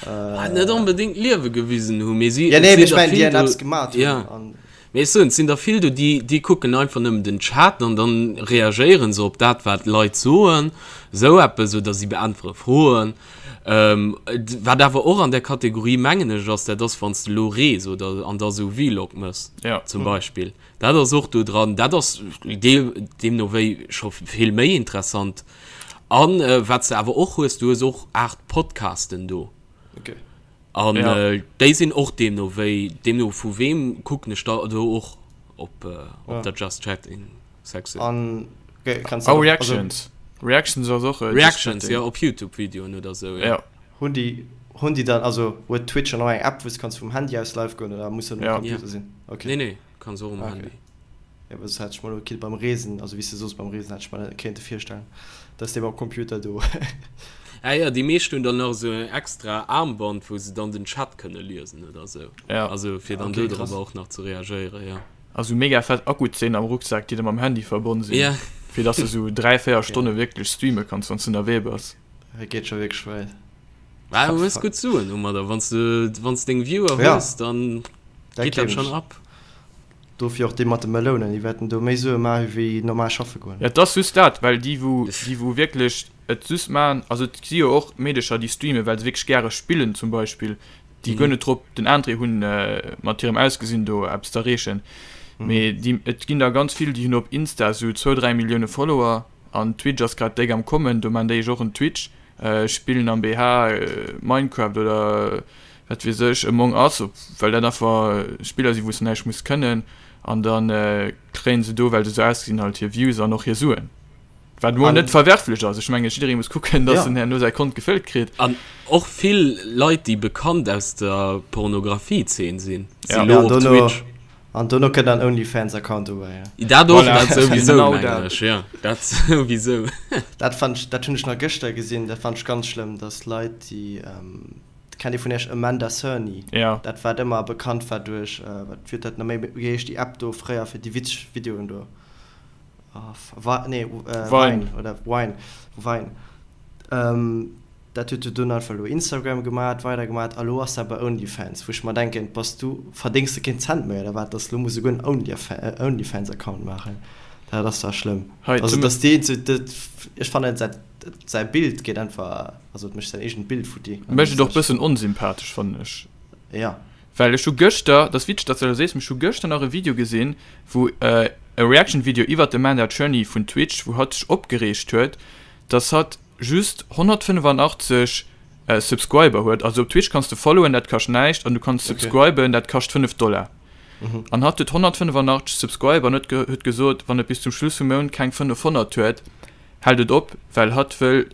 Äh, net onbedéngt Liewe gewisen hu mee si
ja, nee, ich mein, déi Apps gemaat hunn.
Ja. An Mee ech soen, et sinn der vill do, déi, déi kucken einfach nëmmen den Chat an dann reagéiere se op dat, wat d'Leit soen, esou eppes, oder si beäntwere Froen. Wat awer och an där Kategorie, mengen ech, ass, dat ass, wann s de elo rees oder an da esou Vlog méchs zum Beispill. Dat ass och do dran. Dat ass deemno wéi scho vill méi interessant. A wat s de awer och hues, du hues och Aart Podcasten do. An ja. äh, déi sinn och deemno wéi deemno vu weem kucken ech da do och op, äh, op ja. der Just Chatting
Section. An
okay, kannst oh, Reactions. Also, Reactions ass och
äh, Reactions ja op YouTube Videoen oder sou
ja. ja. Hunn déi hunn déi dann also huet Twitch an och eng App wou du kanns vum Handy aus live goen oder muss dat um
ja.
Computer
ja.
sinn?
Okay. Nee nee, kanns och um okay. Handy.
Jo, well soss hätt ech mer elo kinnt beim Reesen, also wéi s de soos beim Reesen, hätt ech mer dat kéinte virstellen, dass dee mam Computer do.
Ah jo, déi meescht hunn dann nach esou en extra Armband, wou se dann den Chat kënne liesen oder esou.
Ja.
Also fir dann do drop och nach ze reagéieren, jo.
A sou mega fett Akkuzeen am Rucksak, déi da mam Handy verbonn sinn,
Ja.
fir dass de sou 3, 4 Stonne wierklech streame kanns, wann s de ënnerwee bass.
Dat geet scho wierklech wäit.
Bah, du hues gutt Suen domadder, wann s de, wann s deng Viewer hues, dann geet dat schonn ab.
Dofir och dee mat de Melounen, déi wäerten do méi Sue maache wéi normal schaffe goen.
Et ass just dat, well déi wou, déi wou wierklech et just maachen, also et si jo och Meedecher déi streamen, well se wierklech gäre spillen zum Beispill, déi guer net drop den Interêt hunn mat hirem Ausgesinn do eppes z'erreechen, mee déi, et ginn der ganz vill, déi hunn op Insta esou zwou, 3 Millioune Follower an Twitch ass grad déck am kommen, do maan déi ech och en Twitch, spillen am BH Minecraft oder wat weess ech, Among Us, well dat einfach Spiller sinn, wou s de näischt muss kënnen, an da kréien se do, well se esou ausgesinn, halt hir Views an och hir Suen. Wat emol net verwerflech ass. Ech menge jidderee muss kucken, datt en herno säi Kont gefëllt kritt.
An och vill Leit, déi bekannt aus der Pornografie-Zeen sinn, si lo op Twitch.
An dono kënnt dann Onlyfans-Account dobäi.
Dat och, dat souwisou, mengen ech, jo, dat souwisou.
Dat fannt ech, dat hunn ech nach gëschter gesinn, dat fannt ech ganz schlëmm, datt Leit, déi. Kennt ee vun iech Amanda Cerny?
Ja.
Dat wat ëmmer bekannt war duerch, wat wier dat nach méi, wéi heescht déi App do fréier fir déi witzeg Videoen do? Wa, nee, Vine oder Wine, Vine. Dat huet jo dunn einfach elo Instagram gemat, weider gemat a lo ass dat bei OnlyFans, wou ech mer denken, bass du, verdéngs de keen Cent méi oder wat, dass lo muss esouguer en OnlyFans-Account maachen? Dat ass dach schlëmm. Also dass déi, ech fannen dat säi Bild geet einfach. Also et mécht säin eegent Bild futti.
Mécht et och bëssen onsympathesch, fannen ech.
Ja.
Well ech hu gëschter, dat ass witzeg, datt s de dat sees, mee ech hu gëschter nach e Video gesinn, wou e Reaction-Video iwwert d'Amanda Cerny vun Twitch, wou hatt sech opgereegt huet, datt hatt just 185 Subscriber huet. Also op Twitch kanns de followen, dat kascht näischt, an du kanns subscriben, dat kascht 5 Dollar. An hatt huet 185 Subscriber an huet huet gesot, wann et bis zum Schluss vum Mount keng 500 huet, hält et op, well hatt wëll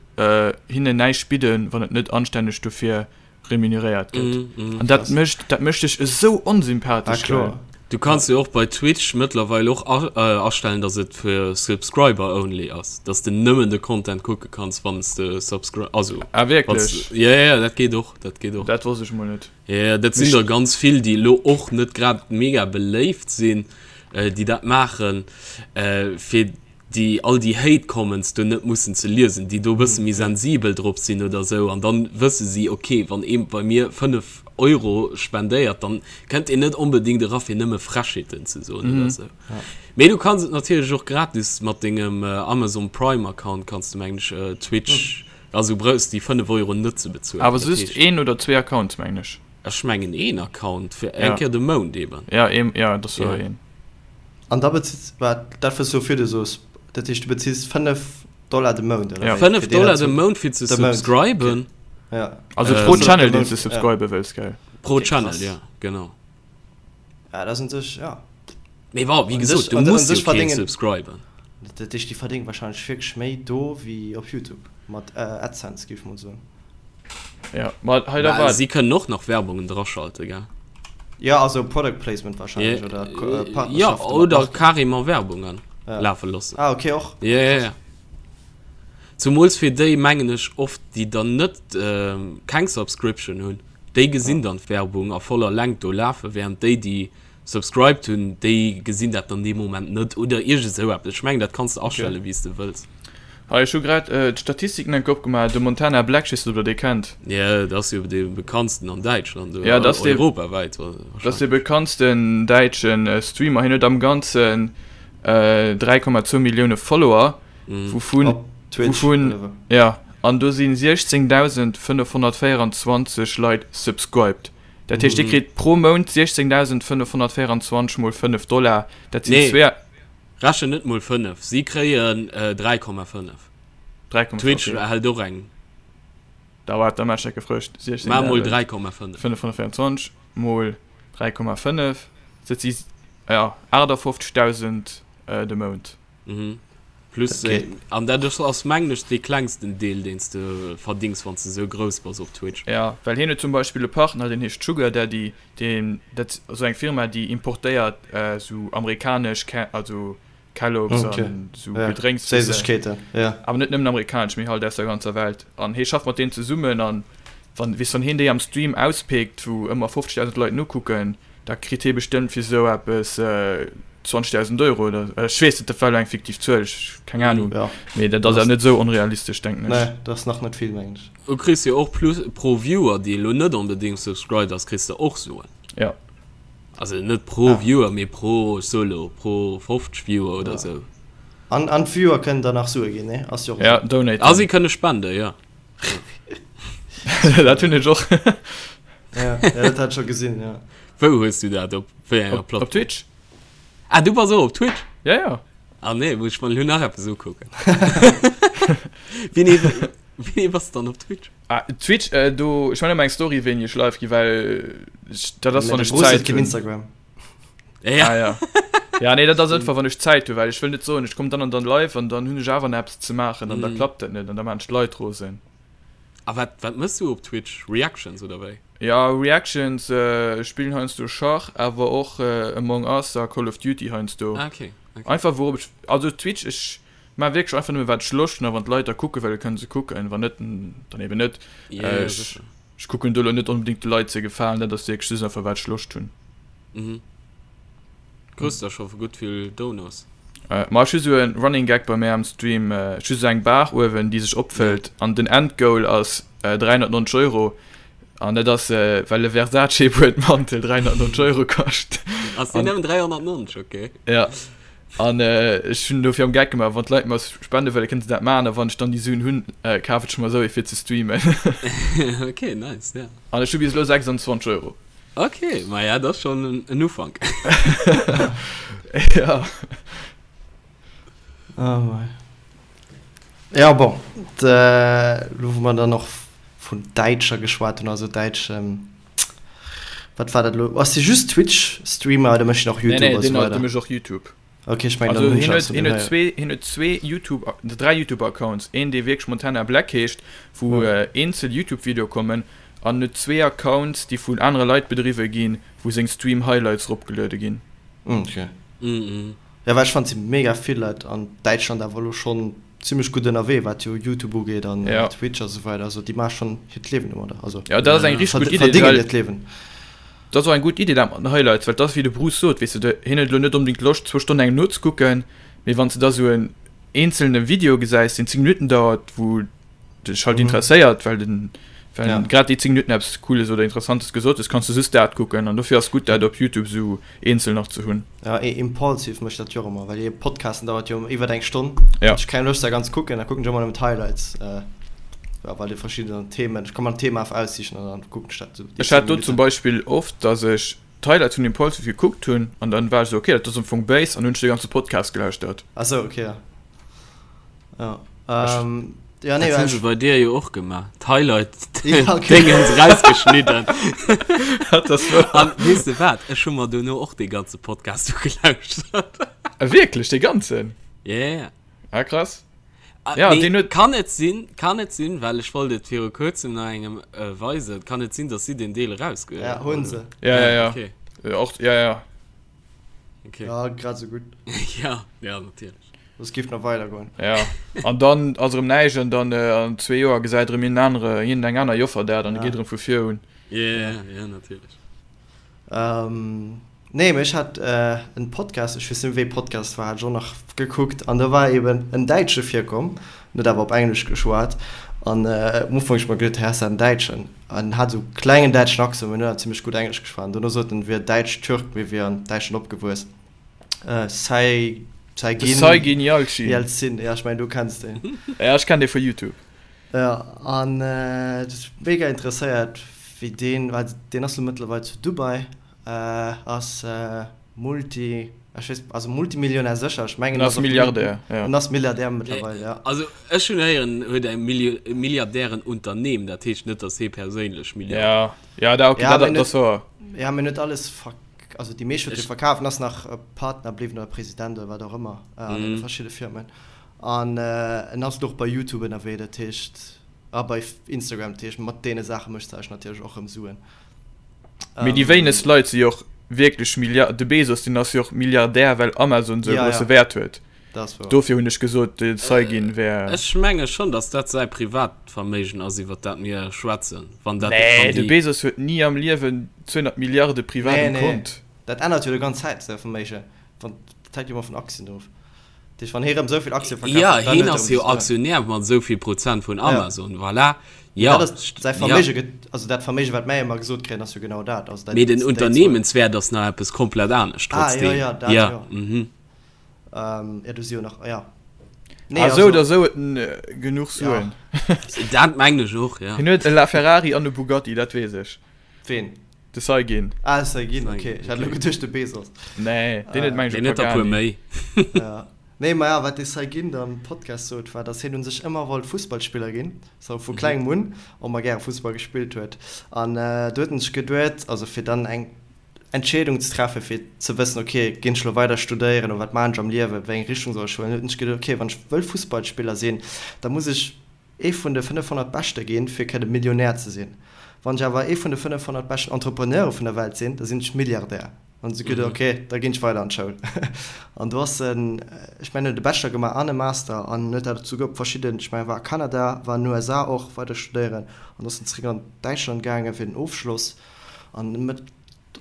hinnen näischt bidden, wann et net anstänneg dofir. Remuneréiert gëtt. An dat mécht, dat mécht dech esou onsympathesch, gell?
Du kanns jo och bei Twitch mëttlerweil och astellen, dass et fir Subscriber only ass, dass de nëmmen de Content kucke kanns, wann s de Subscri-, also.
Ah wierklech?
Jo, jo, dat geet och, dat geet och.
Dat wosst ech mol net.
Jo, jo, dat sinn der ganz vill, déi elo och net grad mega beléift sinn, déi dat maachen, fir déi all déi Hate Comments do net mussen ze liesen, déi do e bësse méi sensibel drop sinn oder esou, an dann wësse si, ok, wann ee bei mir 5 Euro spendéiert, dann kënnt een net onbedéngt era fir nëmme Frechheeten ze soen oder esou. Mee du kanns et natierlech och gratis mat dengem Amazon Prime Account kanns du mengen ech Twitch, also brauchs déi 5 Euro net ze bezuelen.
Awer just een oder zwee Accounts mengen ech.
Ech mengen een Account fir eng Kéier de Mount eben.
Ja, een, ja, dat ass jo een.
An da bezills, wat, dat wës du virdu soos, dat heescht du bezills 5 Dollar de Mount,
oder wéi? 5 Dollar de Mount fir ze subscriben.
Ja.
Also pro Channel deen s de subscribe wëlls, gell?
Pro Channel, ja, genau.
Ja, dat ass un sech, ja.
Mee bon, wéi gesot, du muss jo keen subscriben.
Dat heescht, déi verdéngen wahrscheinlech wierklech méi do wéi op YouTube mat AdSense, géif ech mol soen.
Ja, ma hei da war.
Si kënnen och nach Werbungen draschalte, gell?
Ja, also Product Placement wahrscheinlech oder
Partnerschaften. Ja, oder carrément Werbungen lafe loossen.
Ah, okay, och.
Ja, ja, ja. Zumools fir déi, mengen ech, oft, déi dann net keng Subscription hunn, déi gesinn dann d'Werbung a voller Längt do lafen, während déi, déi Subscribed hunn, déi gesinn dat dann dee Moment net oder iergend esou eppes. Ech mengen dat kanns de astelle wéi s de wëlls.
Hei, ech hu grad d'Statistiken enke opgemaach. De Montana Black, ech weess net ob der dee kennt.
Jo, dat ass jo dee bekanntsten an Däitschland
oder Ja, dat ass dee,
europawäit
dat ass dee bekanntsten däitsche Streamer. Hien huet am Ganzen 3,2 Millioune Follower, wouvun,
Op Twitch
wouvun,
oder wou?
ja, an do si 16.524 Leit subscribed. Dat heescht, dir kritt pro Mount 16.524 mol 5 Dollar, dat sinn
Nee, zwee. Rechnen net mol 5, si kréien 3,5.
3,5,
Twitch okay. hält och eng.
Da waart, da maache ech dat gefrëscht.
Maach mol 3,5.
16.524 mol 3,5, dat si, ja, 58.000 de Mount.
Mhm. Plus, okay. An dat ass mengen ech dee klengsten Deel deen s de verdings wann s de sou grouss bass op Twitch.
Ja, well hien huet zum Beispill e Partner deen heescht Sugar Daddy, deen dat ass eng Firma déi importéiert sou amerikanesch Ke also Kellogg's
okay.
an sou ja. Gedrénks.
Séissegkeeten,
ja. Awer net nëmmen amerikanesch, mee halt aus der ganzer Welt. An hie schafft mat deenen zesummen an wann weess wann hien déi am Stream auspickt, wou ëmmer 50.000 Leit nokucken, Da kritt hie bestëmmt fir esou eppes 20.000 Euro oder ech weess net, dat war elo eng fiktiv Zuel, ech keng Ahnung,
Ja.
mee dat ass awer net esou onrealistesch, denken ech.
Nee, dat ass nach net vill, mengen ech.
Du kriss jo och plus pro Viewer, dee elo net onbedéngt subscribed ass, kriss de och Suen.
Ja.
Also net pro ah. Viewer, mee pro, ech soe lo, pro 50 Viewer oder
ja.
sou.
An, an d'Viewer kënnen dann nach Sue ginn, ne? Ass jo
och Ja, donaten.
A si kënne spenden, ja.
Dat hunn ech och.
Ja, ja, dat hat ech scho gesinn, ja.
Wou hues du dat? Op wéi enger
Op, op
Plattform?
Twitch.
Ah, du bass och op Twitch?
Ja, ja.
Ah nee, muss ech mer elo nach eppes ukucken. Wéini, wéini bass du dann op Twitch?
Ah, Twitch, äh, do, ech man ëmmer eng Story, wéini ech live gi, well ech, dat ass,
Mä
wann
de
ech
Bruce huet
Zäit
keen
hunn.
Instagram.
Ja.
Ah, ja. Ja, nee, dat ass einfach, wann ech Zäit hunn, well ech wëll net soen, ech kommen dann an dann live an dann hunn ech awer nach eppes ze maachen an da
Mm.
klappt dat net an da maachen ech d'Leit rosen.
A wat, wat mëss du op Twitch? Reactions oder wéi?
Ja, Reactions, ech spillen heiansdo Schach, awer och Among Us a Call of Duty heiansdo.
Ah, okay, okay.
Einfach wourop ech, also Twitch, ech maan wierklech einfach nëmme wat ech Loscht hunn a wann d'Leit da kucke wëllen, kënne se kucken, wann net, dann eben net.
Ja, ja,
Ech,
sécher.
ech kucken do elo net onbedéngt de Leit ze gefalen, dat ass wierklech just einfach wat ech Loscht hunn.
Mhm. Krus der scho gutt vill Donos?
Ma ech hu sou e Running Gag bei mär am Stream, ech hu sou eng Bar uewen déi sech opfëllt an den Endgoal ass 390 Euro an dat ass well e Versace Buedmantel 390 Euro kascht.
Ass deen nëmmen 390? Ok.
Ja an ech hunn dofir am Gag gemaach, wann d'Leit mer spende wëllen, kënne se dat maachen a wann ech dann déi Suen hunn, kafen ech mer esou ee fir ze streamen.
Ok, nice, ja.
An ech hu bis elo 26 Euro.
Ok, maja, dat ass schonn en Ufank.
Ja.
Oh mei. Ja, bon, elo wou mer dann och vun Däitscher geschwat hunn, also däitsch, wat war dat elo? Ass dee just Twitch-Streamer oder mécht deen och
Nee,
YouTube
nee,
a
deen
sou weider?
dee mécht och YouTube.
Ok, ech mengen,
Also
dann hunn
hien
ech
huet,
eppes vun
hien
deem
huet
héieren.
zwee, hien huet zwee YouTube, dräi YouTube-Accounts. Een, dee wierklech Montana Black heescht, wou
Ja.
eenzel YouTube-Videoe kommen. An huet zwee Accounts, déi vun anere Leit bedriwwe ginn, wou seng Stream Highlights eropgeluede ginn.
Ok. Jo, well ech fannen, et si mega vill Leit an Däitschland awer elo schonn zimmlech gutt ënnerwee, wat jo Youtube ugeet an Twitch a sou weider. Also déi maache schonn hiert Liewen domadder. Also
Jo, dat ass eng richteg gutt Idee, verdéngen hiert Liewen. Dat ass och eng gutt Idee, dat mat den Highlights, well et ass wéi de Bruce sot, weess de, hien huet elo net onbedéngt Loscht zwou Stonnen engem nozekucken, mee wann s de da sou en eenzelne Video gesäis, deen 10 Minutten dauert, wou dech halt interesséiert, well den well ja. grad déi 10 Minuten eppes Cooles oder Interessantes gesot hues, kanns du just dat kucken an dofir ass gutt dat op Youtube sou eenzel nach ze hunn.
Ja, e Impulsive mécht dat jo och ëmmer, well hir Podcasten dauert jo iwwer eng Stonn. Ja. Ech keng Loscht dat ganz kucken, da kucken ech ëmmer nëmmen d'Highlights, äh, ja, well déi verschidden Themen, ech kann mer en Thema einfach aussichen an dann kucken ech dat
sou. Ech hat do zum Beispill oft, dass ech d'Highlights vun Impulsive gekuckt hunn an dann war ech sou, okay, dat ass am Fong béis an hunn ech de ganze Podcast gelauschtert.
Ah sou, okay, ja.
Ja. Ähm, ja, nee, dat hunn se bei dir jo och gemaach. D'Highlight ja, okay. Dingens rausgeschnidden. An weess de wat? Ech hu mer dono och dee ganze Podcast ugelauschtert.
Ah, wierklech, dee ganzen?
Ja, ja, ja.
Ah, krass.
Ah, ja, nee, den huet... Kann et sinn, kann et sinn, well ech wollt et viru kuerzem nach engem äh, weisen, kann et sinn, dass si den Deel erausge...
Ja, hunn se.
Ja, ja, ja. Okay. Och, ja, ja.
Okay. Ja, grad sou gutt.
ja, ja, natierlech.
Soss giff nach weider goen.
Ja, an dann ass erëm näischt an dann an zwee Joer gesäit erëm een anere, iergend eng aner Joffer dat an da geet erëm vu vir un.
Ja, ja, natierlech.
Ähm, nee, mee ech hat en Podcast, ech weess net méi wéi Podcast war, hat ech och nach gekuckt an do war eben en Däitsche virkomm, en huet awer op Englesch geschwat an um Ufank hu ech mer geduet, hä, ass dat en Däitschen? An en hat esou klengen däitschen Accent, mee en huet awer zimmlech gutt Englesch geschwat an dono sot en, en wier Däitsch-Türk, mee wier an Däitschland opgewuess. Äh, Sai,
Saigin. Saigin
Yalcin. Yalcin, ja, ech mengen, du kenns deen.
Ja, ech kenn dee vu YouTube.
Ja, an äh, dat huet mega interesséiert, wéi deen, well deen ass lo mëttlerweil zu Dubai, äh, ass äh, Multi, ech weess, also Multimillionär sécher, ech mengen,
En ass Milliardär,
ja. En ass Milliardär mëttlerweil, ja.
Also ech hunn héieren, en huet e Milli Milliardärenunternehmen, dat heescht net, datt hie perséinlech
Milliardär. Ja, ja, da, okay,
ja,
dat, dat ass wouer.
Ja, mee en huet alles verk. Also déi meescht huet e verkaf an ass nach Partner bliwwen oder President oder wat och ëmmer an deene verschidde Firmen. An en ass elo och bei YouTube ënnerwee, dat heescht, a bei Instagram, dat heescht mat deene Saache mécht se eis natierlech och erëm Suen.
Mee déi wéinegst Leit si jo och wierklech Milliard, de Bezos deen ass jo och Milliardär well Amazon esou e grousse Wäert huet. Dofir hunn ech gesot de Saygin wär.
Ech menge schonn, datt dat säi Privatverméigen ass iwwer dat mir schwätzen.
Wann dat, Nee, de Bezos huet ni am Liewen 200 Milliarde privat um Kont.
Dat ännert jo de ganz Zäit säi Verméigen. Wann, dat hänkt jo ëmmer vun Aktien of. Dat heescht, wann hie rëm esou vill Aktie
verkaf huet, dann huet e rëm. Jo, hien ass jo Aktionär mat esou vill Prozent vun Amazon, voilà.
Jo. Dat ass säi Verméige gëtt, also dat Verméige wat mäi ëmmer gesot kréien, ass jo genau dat. Also dat,
Mee den Unternehmenswäert ass nach eppes komplett anescht
trotzdem. Ah jo, jo, dat jo. Ähm, ja, du si jo nach, ja.
Nee, ah, also, oder sou huet en äh, genuch Suen.
Ja. Dat mengen ech och, ja.
Hien huet e LaFerrari an e Bugatti, dat weess ech.
Ween?
De Saygin.
Ah, de Saygin, okay. Ech hat elo geduecht de Bezos.
Nee, deen huet
meng ech e Pagani. Méi.
Ja. Nee, ma ja, wat de Saygin da am Podcast sot, war, dass hien u sech ëmmer wollt Fussballspiller ginn, sou vu klengem un, ëmmer gäre Fussball gespillt huet. An äh, do huet en sech geduet, also fir dann eng Entscheedung ze treffen, fir ze wëssen, ok, ginn ech elo weider studéieren oder wat maachen ech am Liewen, wéi eng Richtung soll ech huelen, huet en sech geduet, ok, wann ech wëll Fussballspiller sinn, da muss ech ee vun de 500 Beschte ginn, fir kënne Millionär ze sinn. Wann ech awer ee vun de 500 beschten Entrepreneure vun der Welt sinn, da sinn ech Milliardär. An huet sech geduet, ok, da ginn ech weider an d'Schoul. An do ass en, ech mengen, huet e Bachelor gemaach an e Master an huet dat souguer op verschidden, ech mengen, war a Kanada, war an den USA och weider studéieren an ass dann zeréck an Däitschland gaangen fir den Ofschloss. An met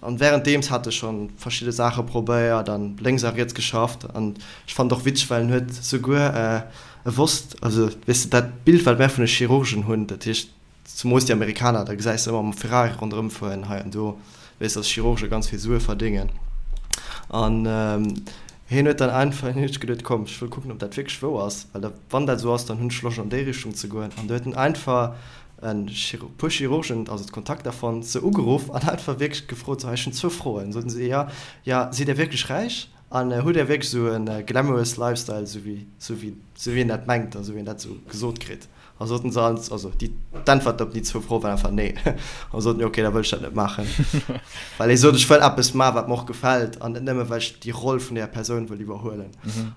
an währenddeems hat e schon verschidde Saache probéiert an lénks a riets geschafft. An ech fand och witzeg, well en huet souguer e wosst, also weess de dat Bild wat mär vun de Chirurgen hunn, dat heescht zumoos déi Amerikaner, da gesäis de ëmmer mam Ferrari ronderëm fueren hei an do, weess dass Chirurge ganz vill Sue verdéngen. An hien huet dann einfach, hien huet sech geduet, komm ech wëll kucken ob dat wierklech wouer ass, well da wann dat esou ass, dann hunn ech Loscht an déi Richtung ze goen. An do huet en einfach e puer Chirurgen, also d'Kontakter fonnt, se ugeruff an einfach wierklech gefrot, sou, hei, ech hunn zwou Froen. Soten se, jo, jo, sidd Dir wierklech räich an hutt Dir wierklech esou e glamorous Lifestyle, esou wéi, esou wéi, esou wéi een dat mengt a esou wéi een dat esou gesot kritt? A soten se all, also déi, d'Äntwert op déi zwou Froe war einfach nee. A soten, jo, okay, da wëll ech dat net maachen. Well hie sot, ech wëll eppes maachen, wat mer och gefält an net nëmme well ech déi Roll vun där Persoun wëll iwwerhuelen.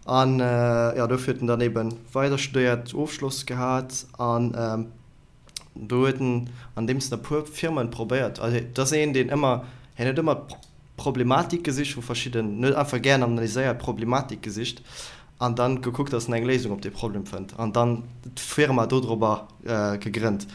An jo, dofir huet en dann eebe weider studéiert, Ofschloss gehat an. Do huet en andeems en e puer Firmen probéiert, also et ass een deen ëmmer, hien huet ëmmer d'Problematik gesicht vu verschidden, en huet einfach gären analyséiert, Problematik gesicht an dann gekuckt, dass en eng Léisung op dee Problem fënnt an dann d'Firma dodrobber gegrënnt.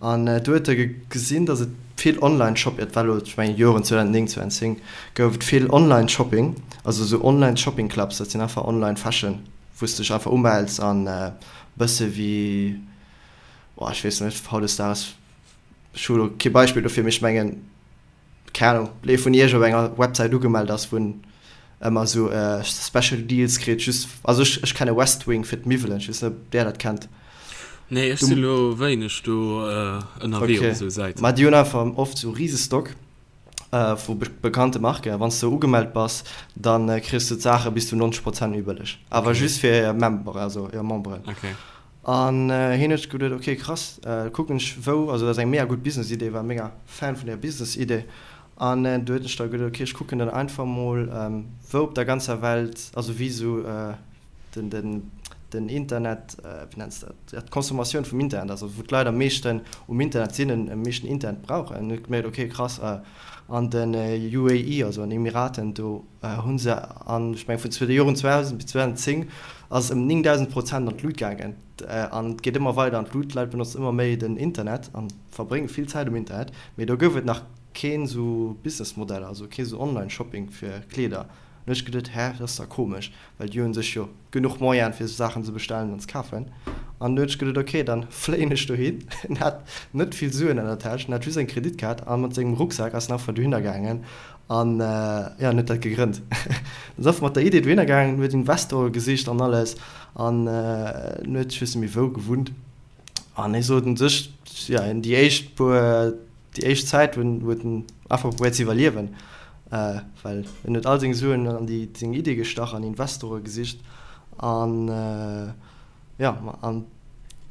An do huet e gesinn, dass et vill Online-Shop, et war elo, ech mengen Joren 2009, 2010, gouf et vill Online-Shopping, also esou Online-Shopping-Clubs, dat sinn einfach Online-Fashion, wou s de dech einfach umells an e bësse wéi, oh ech weess net, hautdesdaags, ech hu elo kee Beispill dofir, mee ech mengen, keng Ahnung, ee vun iech op enger Websäit ugemellt ass, wou en ëmmer esou Special Deals kritt, just, also ech, ech kenne Westwing fir d'Miwwelen, ech weess net, ob där dat kennt.
Nee, ech si lo wéineg do ënnerwee op esou Säiten.
Mä déi hunn einfach oft esou rise Stock vu bekannte Marken, a wann s de ugemellt bass, da kriss de d'Saache bis zu 90 Prozent méi bëlleg, awer just fir hir Member, also hir Memberen. An hien huet sech geduet, ok krass, kucken ech wou, also dat ass eng mega gutt Business-Idee, war mega Fan vun där Business-Idee. An du huet ech da geduet, ok ech kucken dann einfach mol wou op der ganzer Welt, also wéi esou den den den Internet, wéi nenns de dat, ja d'Consommatioun vum Internet ass, also wou d'Leit am meeschten um Internet sinn, am meeschten Internet brauchen. An huet gemierkt, ok krass, an den UAE, also an Emiraten, do Hu se an, ech mengen vun de Joren 2000 bis 2010 ass et ëm 9.000 Prozent an d'Lut gaangen. An et geet ëmmer weider an d'Lut, d'Leit benotzen ëmmer méi den Internet a verbrénge vill Zäit um Internet. Mee do gouf et nach keen esou Businessmodell, also kee sou Online-Shopping fir Kleeder. An hu ech geduet, hä, dat ass da komesch, well déi hu sech jo genuch Moyene fir sou Saachen ze bestellen an ze kafen. An du hunn ech geduet, ok, dann fléien ech dohin. En hat net vill Suen an der Täsch, en hat just eng Kreditkaart a mat sengem Rucksak ass en einfach dohinner gaangen An jo, en huet dat gegrënnt. En ass einfach mat der Idee dohinner gaangen, huet Investore gesicht an alles. An en huet, ech weess net méi wou, gewunnt. An hie sot un sech, jo, déi éischt puer, déi éischt Zäit huet en einfach probéiert ze iwwerliewen, well en huet all seng Suen an déi seng Idee gestach an Investore gesicht. An jo, an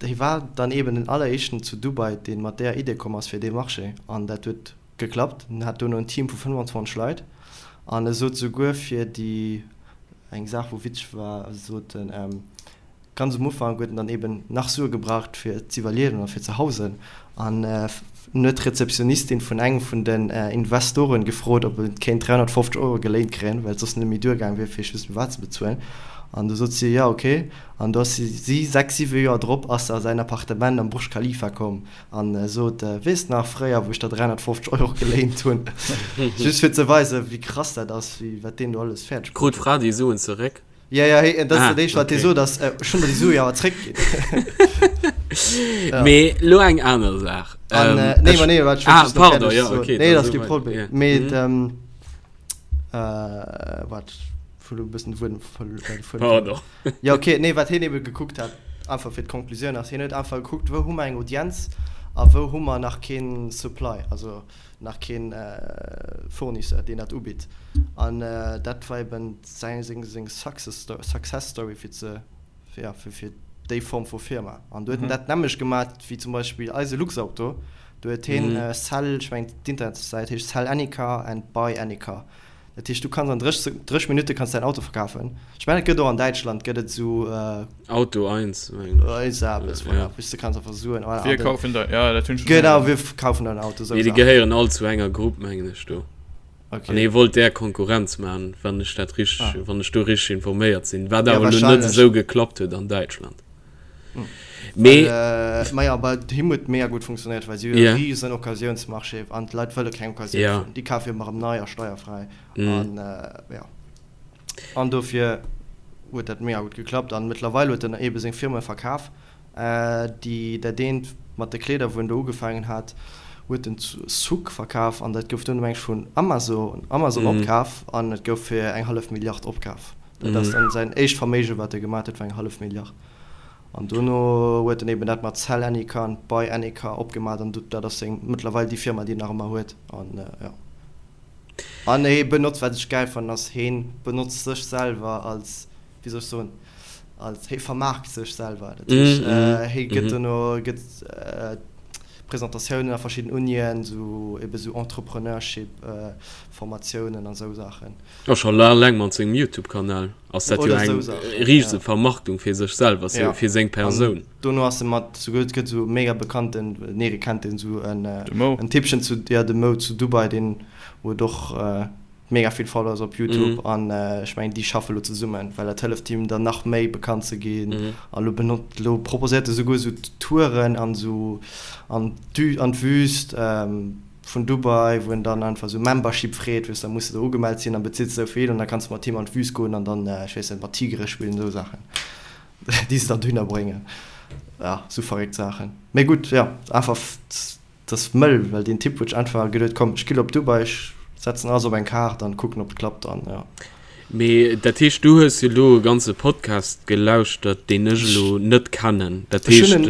hie war dann eeben den alleréischten zu Dubai, dee mat där Idee komm ass fir dee Marché. An dat huet Geklappt. En hat duerno en Team vu 25 Leit an e sot souguer fir déi eng Saach wou witzeg war, sot en, ganz um Ufank huet en dann eben nach Sue gebraucht fir z'iwwerliewen a fir ze hausen an en huet d'Rezeptionistin vun engem vun den Investoren gefrot ob en kéint 350 Euro geléint kréien, well et soss net méi duergaang wier fir just wat ze bezuelen an du sot si jo ok an du ass si 6, 7 Joer drop ass se a säin Appartement am Burj Khalifa komm An sot, Weess nach fréier, wou ech der 350 Euro geléint hunn? Just fir ze weisen, wéi krass dat ass, wéi wat deen do alles fäerdeg
Krut bruet huet. d'Fra déi Suen zeréck?
Ja, ja, hee, dat ass dat éischt, wat hie sot, ass, Ech hunn der déi Sue jo awer zréckginn.
Ja. Mee lo eng aner Saach.
An, Ähm, nee, ech, ma nee, wat, ech wollt ah, just nach
pardon, fäerdeg ja, soen. okay,
Nee, dat ass kee Problem. Mee, ähm, äh, wat, ech hu lo e bëssen de Wuedem verlu-, äh, de Fuedem verluer.
Pardon.
Jo ok, nee wat hien ebe gekuckt hat, einfach fir d'Conclusioun ass, hien huet einfach gekuckt wou hu mer eng Audienz a wou hu mer nach keen Supply, also nach keen Fournisseur deen dat ubitt an dat war eben säin seng seng Success Success Story fir ze jo fir fir déi Form vu Firma an do huet en dat nämmlecht gemat wéi zum Beispill eise Luxauto, do huet hien Sell, ech mengen d'Internetsäit heescht Sell any car and buy any car. Dat heescht, du kanns an 30 Minutte kanns däin Auto verkafen. Ech mengen, et gëtt och an Däitschland gëtt et esou.
Auto 1,
mengen ech. Esou eppes, voilà. Wou s du kanns einfach soen,
voilà. Wir kaufen dein, ja, dat
hunn ech schonn héieren. Genau, wir kaufen dein Auto,
esou Mee déi gehéieren all zu enger Grupp, mengen ech, do. Okay. An hie wollt där Konkurrenz maachen, wann ech dat richteg, wann ech do richteg informéiert sinn. Wat awer elo net esou geklappt huet an Däitschland.
Mee. Maja, bei him huet mega gutt funktionéiert, well si hunn e riesen Occasiounsmarché an d'Leit wëlle keng Occasioun fueren. Déi kafe jo ëmmer erëm nei a steierfräi. An jo, an dofir huet dat mega gutt geklappt. An mëttlerweil huet en eebe seng Firme verkaf. Déi, dat eent mat de Kleeder, wou en do ugefaangen hat, huet en zu Souq verkaf an dat gouf duerno meng ech vun Amazon, Amazon opkaf an et gouf fir eng hallef Milliard opkaf. Dat ass dann säin éischt Verméige wat e gemat huet, war eng hallef Milliard. An dono huet en eben dat mat Sell Any Car an Buy Any Car opgemat an dat ass seng mëttlerweil déi Firma déi en nach ëmmer huet. An jo. An hee benotzt, wat ech gäil fannen, ass heen benotzt sech selwer als, wéi soll ech soen, als, hee vermaarkt sech selwer. Dat heescht hee gëtt dono gëtt. Presentatiounen a verschidden Unien, sou ebe sou Entrepreneurship Formatiounen an esou Saachen.
A scho eleng mat sengem Youtube Kanal ass dat jo eng riese Vermarktung fir sech selwer, fir seng Persoun.
Dono ass e mat souguer, et gëtt esou mega bekannten, nee kennt een esou en Typchen zu, jo de Mo zu Dubai, deen huet och mega vill Followers op Youtube an ech mengen déi schaffe lo zesummen, well dat hëlleft him dann nach méi bekannt ze ginn an lo benot lo proposéiert e souguer esou Touren an esou an d'Wü an d'Wüst vun Dubai, wou en dann einfach esou Membership freet, weess da muss de do ugemellt sinn an bezills esou vill an da kanns de mat him an d'Wüst goen an dann ech weess net mat Tigere spillen esou Saachen déi se dann dohinner bréngen, ja esou verréckt Saachen. Mee gutt jo einfach. Et ass mëll, well deen Typ huet sech einfach geduet, komm ech gi lo op Dubai, ech setzen alles op eng Kaart an kucken ob et klappt an jo.
Mee dat heescht du hues jo lo e ganze Podcast gelauschtert deen ech elo net kennen, dat heescht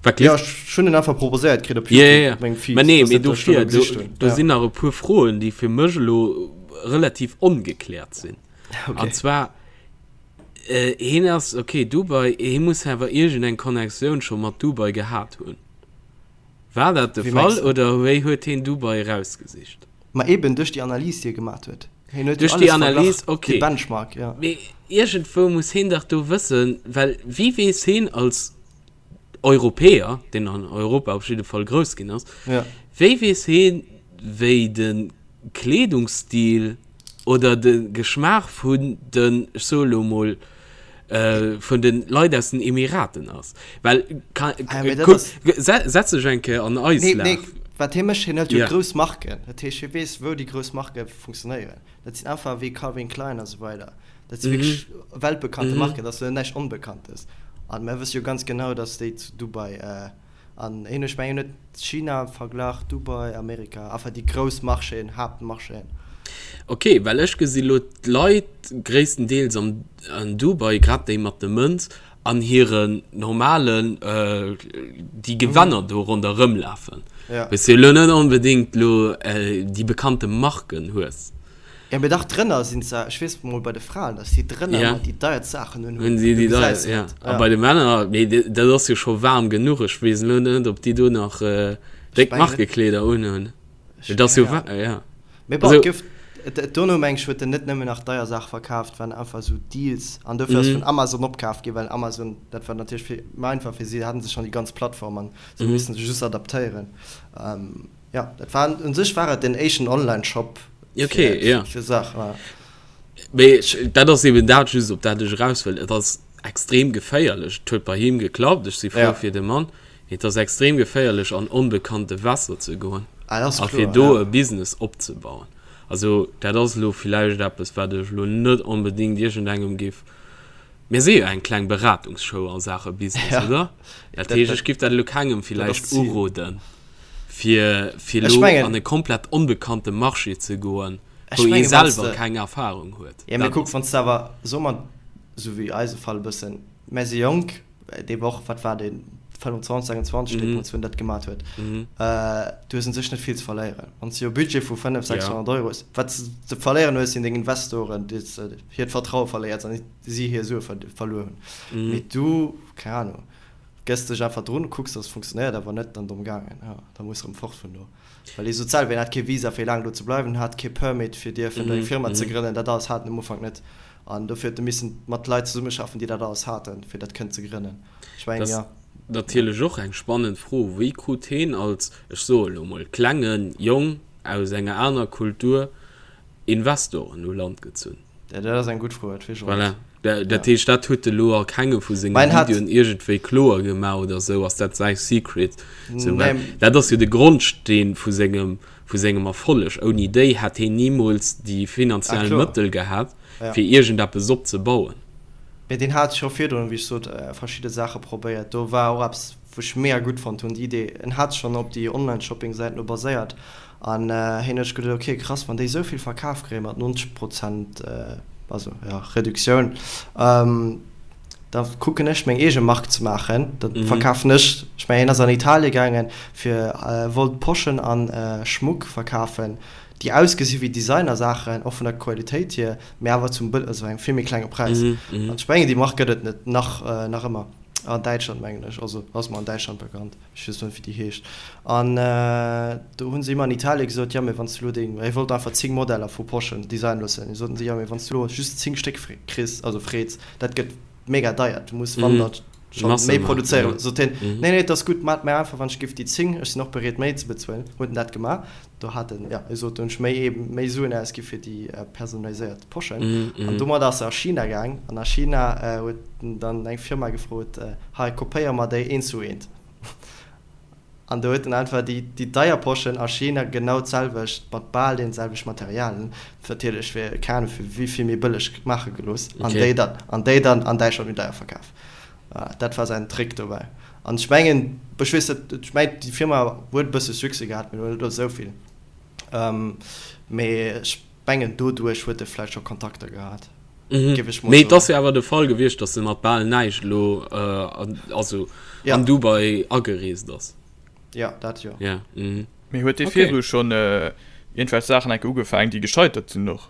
wat Jo ech hunn en einfach proposéiert kritt op
Youtube op mengem Feed. Mä nee, mee dofir, do sinn nach e puer Froen déi fir mech elo relativ ongekläert sinn. An zwar hien ass, ok Dubai, hie muss awer iergend eng Connectioun scho mat Dubai gehat hunn. War dat de Fall oder wéi huet heen Dubai erausgesicht?
Ma eben duerch déi Analys déi e gemat huet.
Hien huet jo alles verglach, dee Benchmark, jo. Mee iergendwou muss heen dach do wëssen, well wéi weess heen als Europäer, deen an Europa op jidde Fall grouss ginn ass, wéi weess heen wéi de Kleedungsstil oder de Geschmaach vun den, ech soe lo mol, vun de Leit aus den Emiraten ass. Well, kuck, setz dech eng Kéier an eis
Lag. Nee, wat hie mécht, hien hëlt jo grouss Marken. Dat heescht, hie weess, wou déi grouss Marke funktionéieren. Dat sinn einfach wéi Calvin Klein a sou weider. Dat si wierklech weltbekannte Marken, dat ass jo näischt Onbekanntes. A mir wësse jo ganz genau, datt déi zu Dubai An een, ech mengen huet China verglach, Dubai, Amerika, enfin déi grouss Marchéen, Haaptmarchéen.
Ok, well ech gesi lo d'Leit gréisstendeels an an Dubai, grad déi mat de Mënz, an hiren normalen, déi Gewänner do ronderëm lafen. Wou s de lo net onbedéngt lo déi bekannte Marken hues.
Jo mee dach drënner sinn se, ech weess mol bei de Fraen dass si drënner ëmmer déi deierst Saachen un hunn,
du gesäis se net. A bei de Männer, mee dat ass jo scho waarm genuch, ech weess elo net ob déi do nach déck Markekleeder un hunn, et ass jo waarm, jo.
Mee bon, et gouf dono meng ech huet en net nëmmen nach deier Saache verkaaft, waren einfach esou Deals an dofir ass vun Amazon opkaaft ginn, well Amazon dat war natierlech vill méi einfach fir si, haten se schonn déi ganz Plattform an se hu missen sech just adaptéieren. Jo, dat war un sech war et den éischten Online-Shop
okay, fir, ja. fir Saach. Ja. Mee dat ass eben dat just op dat ech eraus wëll. Et ass extrem geféierlech. Et huet bei him geklappt, ech si frou ja. fir de Mann. Et ass extrem geféierlech an onbekannte Wässer ze goen ah, a fir do ja. e Business opzebauen. Also dat ass elo villäicht eppes, wat ech elo net onbedéngt iergendengem géif. Mir si jo eng kleng Beratungsshow a Saache Business, ja. oder? Dat heescht, ech géif dat elo kengem villäicht uroden. Fir, fir elo an e komplett onbekannte Marché ze goen, wou ee selwer keng Erfahrung huet.
Ja, mee kuck, wann s de awer, soe mer, esou wéi eise Fall e bëssen, mär si jonk, dee war och, wat war deen, 25, 26 deemools, wou en dat gemat huet, du hues un sech net vill ze verléieren. Wann s de jo e Budget vu 500, 600 Euro hues, wat s de ze verléieren hues, sinn deng Investoren, déi s de hiert Vertraue verléiers an si hir Sue verluer hunn. Mee du, keng Ahnung. Gëss dech einfach drun, kucks dass et funktionéiert, a wann net, dann domm gaangen. Jo, da muss rëm fort vun do. Well hie sot selwer, hien hat kee Visa fir laang do ze bleiwen, hat kee Permit fir dierfen do eng Firma ze grënnen, dat alles hat en um Ufank net. An dofir huet e missen mat Leit zesummeschaffen, déi dat alles haten, fir dat kënnen ze grënnen.
Ech mengen, jo. Natierlech och eng spannend Fro, Wéi krut heen als, ech soe lo mol, klenge Jong aus enger aner Kultur Investoren u Land gezunn?
Ja, dat ass eng gutt Fro, dat weess ech och
net. Voilà. Dat heescht, dat huet e lo a kengem vu senge Videoen iergendwéi kloer gemaach oder esou. Ass dat säi Secret? Sou, well dat ass jo de Grondsteen vu sengem, vu sengem Erfolleg. Ouni déi hätt heen nimools déi finanziell Mëttel gehat, fir iergendeppes opzebauen.
Mee deen hat scho virdrun, wéi ech sot, verschidde Saache probéiert. Do war och eppes, wou ech mega gutt fonnt hunn, déi Idee. En hat schonn op déi Online-Shopping-Säiten do baséiert. An hien huet sech geduet, ok krass, wann déi esou vill verkaf kréie mat 90 Prozent, also jo, Reduktioun, da kucken ech meng eege Mark ze maachen, da verkafen ech, ech mengen hien ass an Italie gaangen fir wollt Poschen a Schmuck verkafen, déi ausgesi wéi Designersaachen, och vun der Qualitéit hier, mee awer zum also engem vill méi klenge Präis. An ech mengen déi Mark gëtt et net nach nach ëmmer. An Däitschland mengen ech, also ass mer an Däitschland bekannt, ech weess net wéi déi heescht. An do hu se him an Italien gesot, jo mee wann s du elo deng, hie wollt einfach 10 Modeller vu Poschen designen loossen, soten se, jo mee wann s du elo just 10 Stéck kriss, also freets, dat gëtt mega deier, du muss wann dat scho méi produzéieren. Sot hien, nee nee et ass gutt, maacht mir einfach wann ech giff déi 10, ech sinn och bereet méi ze bezuelen, huet en dat gemaach. Do hat en, jo, hie sot, do hunn ech méi eben méi Suen ausgi fir déi personaliséiert Poschen. An domat ass e a China gaang an a China huet en dann eng Firma gefrot, hei kopéier mer déi eent zu eent. An do huet en einfach déi déi deier Poschen a China genau d'selwecht mat bal deene selwecht Materialien, natierlech fir keng Ahnung fir wéi vill méi bëlleg maache gelooss an déi dann an déi dann an Däitschland méi deier verkaf. Voilà, dat war säin Trick dobäi. An ech mengen, ech weess net, ech mengen déi Firma huet e bësse Succès gehat, mee net esou vill. Mee ech mengen doduerch huet e vläicht scho Kontakter gehat,
géif ech mol soen. Mee et ass jo awer de Fall gewiescht, datt e mat bal näischt elo, also an Dubai agereest ass.
Jo, dat jo.
Ja, mhm. Mee huet dee virdru schonn iergendwelch Saachen enke ugefaangen, déi gescheitert sinn och?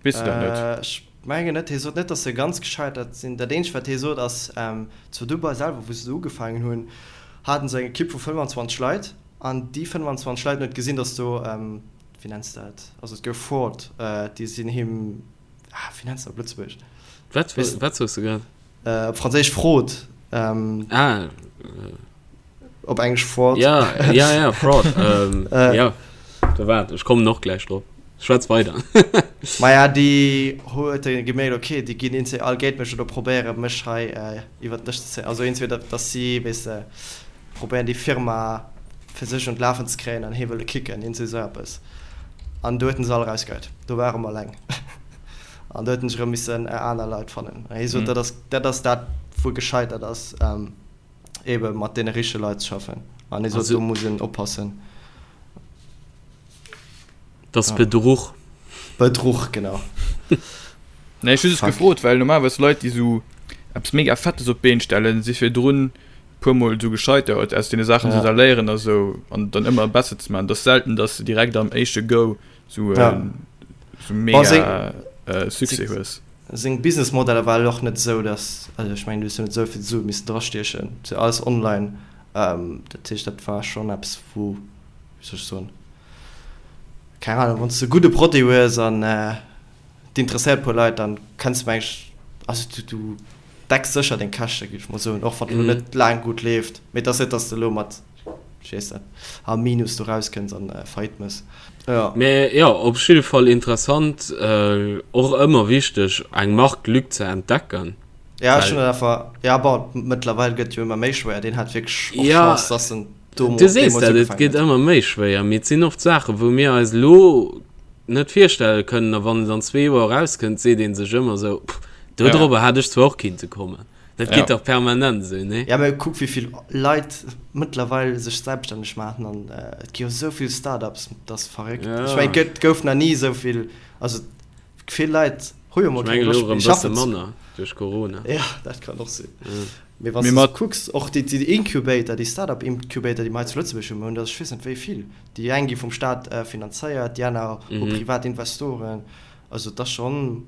Weess de dat net?
Ech mengen net. Hie sot net, datt se ganz gescheitert sinn. Dat eenzegt, wat hie sot, ass, zu Dubai selwer, wou se do ugefaangen hunn, haten se eng Ekipp vu 25 Leit. An déi 25 Leit, en huet gesinn, datt do, wéi nenns de dat, also et gouf Fraud, déi sinn him, ah, wéi nenns de dat op Lëtzebuergesch?
Wat, wat soos de grad?
Op Franséisch Fraude.
Ah.
Op Englesch Fraud.
Ja, ja, ja, Fraud. ähm, äh, ja, da waart, ech kommen och gläich drop. Schwätz weider.
Maja, déi huet e gemierkt, okay, déi ginn eenzel all géint mech oder probéiere mech hei äh, iwwer den Dësch ze zéien. Also eenzel, datt si, weess de, probéieren déi Firma fir sech un d'Lafen ze kréien an hie wëlle kicken, eenzel esou eppes. An do huet en se all erausgeheit. Do war e rëm alleng. An do huet en sech erëm missen aner Leit fannen. An hie sot, dat ass dat, ass dat wou e gescheitert ass. Ähm, ebe mat deene richtege Leit ze schaffen. An hie sot, do muss een oppassen.
Dat ass Bedruch.
Bedruch, genau.
Nee, ech hu just gefrot, well normalerweis Leit, déi esou eppes mega Fettes op d'Been stellen, si virdrun puer Mol esou gescheitert, aus deene Saachen se da léieren a sou an dann ëmmer besser ze maachen. Et ass selten, datt s de direkt am éischte Go sou sou mega Succès hues.
Seng Businessmodeller war och net esou, dass, also ech mengen, du hues jo net esou vill Sue missen drastiechen, et ass jo alles online, dat heescht, dat war schonn eppes, wou, wéi soll ech soen, keng Ahnung, wann s de e gudde Produit hues an et interesséiert e puer Leit, dann kenns de meng ech, also du, du decks sécher deng Käschte, géif ech mol soen, och wann et elo net laang gutt leeft, mee et ass net, dass de elo mat Ech weess net, am Minus do rauskënns an Faillite mëss.
Jo. Mee jo, op jidde Fall interessant, och ëmmer wichteg eng Marktlück ze entdecken.
Ja, ech hunn dat einfach, ja bon, mëttlerweil gëtt jo ëmmer méi schwéier, deen hat wierklech och Chance, dass en
do Du sees dat, et gëtt ëmmer méi schwéier, mee et sinn oft Saachen, wou mir eis elo net virstelle kënnen, a wann et an zwee Joer erauskënnt, seet ee sech ëmmer esou, pff, dodrobber hat ech zwar och kinnte kommen. Dat geet dach permanent esou, nee?
Ja, mä kuck wéi vill Leit mëttlerweil sech selbststänneg maachen an et gi jo esou vill Start-ups, dat ass verréckt. Ech mengen, et gouf nach ni esou vill, also vill Leit hu jo mol
keng Loscht méi schaffen ze. Ech mengen elo erëm e bësse manner duerch Corona.
Ja, dat kann och sinn. Mee wann s de kucks, och déi Incubator, déi Start-up-Incubator, déi mer hei zu Lëtzebuerg hunn, mer hunn der ech weess net wéi vill. Déi eng gi vum Staat finanzéiert, déi aner hu privat Investoren. Also et ass schonn.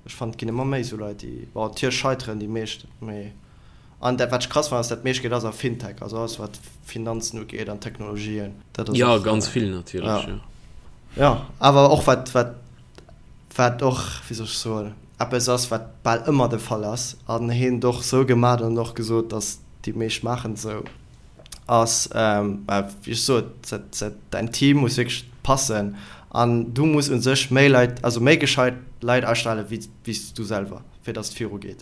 Ech fannen et ginn ëmmer méi esou Leit déi, bon natierlech scheiteren déi meescht, mee an dat wat ech krass fannen ass dat meescht Geld ass a Fintech, also alles wat Finanzen ugeet an Technologien,
dat ass Jo och ganz vill natierlech, jo.
Jo awer och wat wat wat och, wéi soll ech soen, eppes ass wat bal ëmmer de Fall ass an hien et och sou gemat an och gesot, datt déi meescht maachen et sou, ass, wéi ech sot, däin Team muss wierklech passen an du muss u sech méi Leit, also méi gescheit Leit astelle wéi s du selwer, fir datt et viru geet.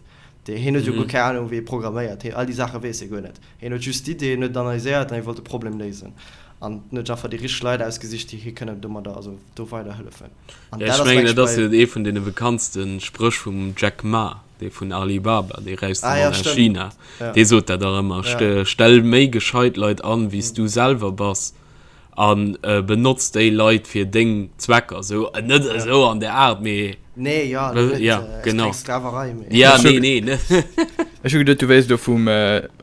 Hien huet jo guer keng Anung wéi ee programméiert, hien all déi Saache weess hie guer net. Hien huet just d'Idee, hien huet et analyséiert an hie wollt de Problem léisen an en huet einfach déi richteg Leit ausgesicht, déi hie kënnen domadder, also do weiderhëllefen.
An dat ass, mengen ech, dat ass jo ee vun deene bekanntste Spréch vum Jack Ma, dee vun Alibaba, dee räichste Mann aus China, dee sot dat dach ëmmer, Stell méi gescheit Leit an, wéi s du selwer bass, a benotz déi Leit fir deng Zwecker. Esou, net esou an där Aart, mee.
Nee, jo, net,
ja, genau. Keng Sklaverei, mee. Ja, nee, nee,
net. Ech hu geduet, du wéilst elo vum,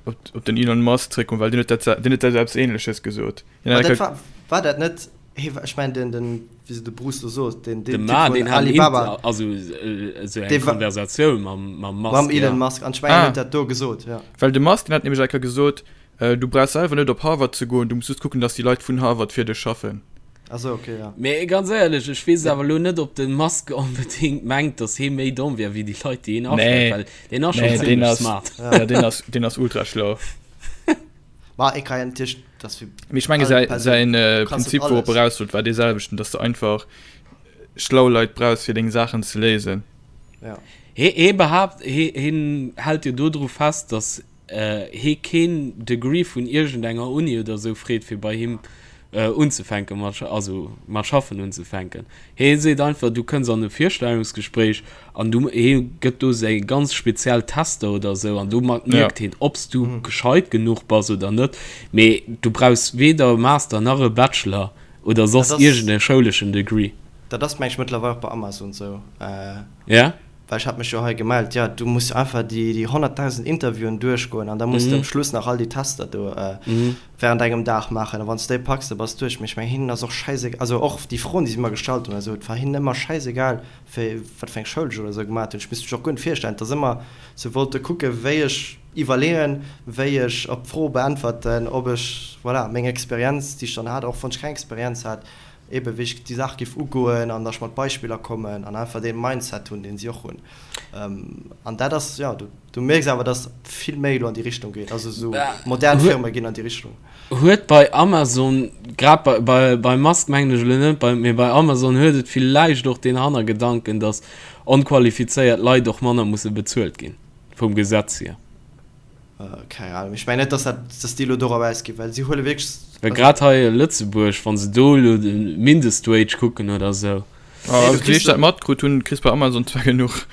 op den Elon Musk zréckkommen, well deen huet dat, deen huet dat eppes Ähnleches gesot.
War dat net. Hee, ech mengen den, den, wéi se de Bruce do sot, den,
den Typ vun Alibaba. Also esou eng Konversatioun mam, mam
Musk. Mam Elon Musk, an ech mengen, hien huet dat do gesot,
jo. Well de Musk, deen hat nämlech eng Kéier gesot, du brauchs selwer net op Harvard ze goen, du muss just kucken, dass déi Leit vun Harvard fir dech schaffen.
Ah sou, ok, jo.
Mee ganz éierlech, ech weess awer elo net, ob de Musk onbedéngt mengt, dass hee méi domm wär wéi déi Leit, déi hien astellt, well deen ass schonn
zimlech smart. Jo, deen ass, deen ass ultra schlau.
Ma et kann natierlech, dass
fir Mee ech menge säi, säin Prinzip, wourop e raus wollt, war dee selwechten, dass de einfach schlau Leit brauchs, fir deng Saachen ze léisen.
Ja. Hee, hee behaapt, hee, hien hält jo dodru fest, dass hee keen Degree vun iergendenger Uni oder esou freet, fir bei him unzefänke mat, also mat schaffen unzefänken. Hee seet einfach, du kënns an e Virstellungsgespréich an du, hee gëtt do seng ganz speziell Tester oder esou an domat mierkt heen, ob s du gescheit genuch bass oder net. Mee du brauchs weder e Master nach e Bachelor oder soss iergend e schouleschen Degree.
Dat ass, meng ech, mëttlerweil och bei Amazon esou.
Ja?
Well ech hat mech jo hei gemellt. Jo, du muss einfach déi 100.000 Interviewen duerchgoen an da muss de um Schluss nach all déi Tester do während engem Dag maachen. A wann s de déi packs, da bass de duerch. Mee ech mengen, hinnen ass och schäisegal, also och déi Froen, déi si mer gestallt hunn, also et war hinnen ëmmer schäisegal, wéi, wat fir eng Schoul ech oder esou gemaat hunn. Ech misst mech och guer net virstellen. Et ass ëmmer, se wollte kucken, wéi ech iwwerleeën, wéi ech op d'Fro beäntwerten, ob ech, voilà, meng Experienz, déi ech dann hat, och wann ech keng Experienz hat, ebe wéi ech déi Saach géif ugoen an datt ech mat Beispiller kommen an einfach dee Mindset hunn, deen si och hunn. An dat ass, jo, du mierks awer, datt vill méi elo an déi Richtung geet, also esou modern Firme ginn an déi Richtung.
Huet bei Amazon, grad bei, bei, bei Musk mengen ech elo net, bei, mee bei Amazon huet et villäicht och deen Hannergedanken, datt onqualifizéiert Leit och manner musse bezuelt ginn, vum Gesetz hier.
Keng Ahnung, ech mengen net, datt dat, datt déi elo dorop ausginn, well si huele wierklech.
Well grad hei a Lëtzebuerg, wa se do elo de Mindestwage kucken oder esou.
Also wéi ech dat matkrut hunn, kriss bei Amazon zwar genuch.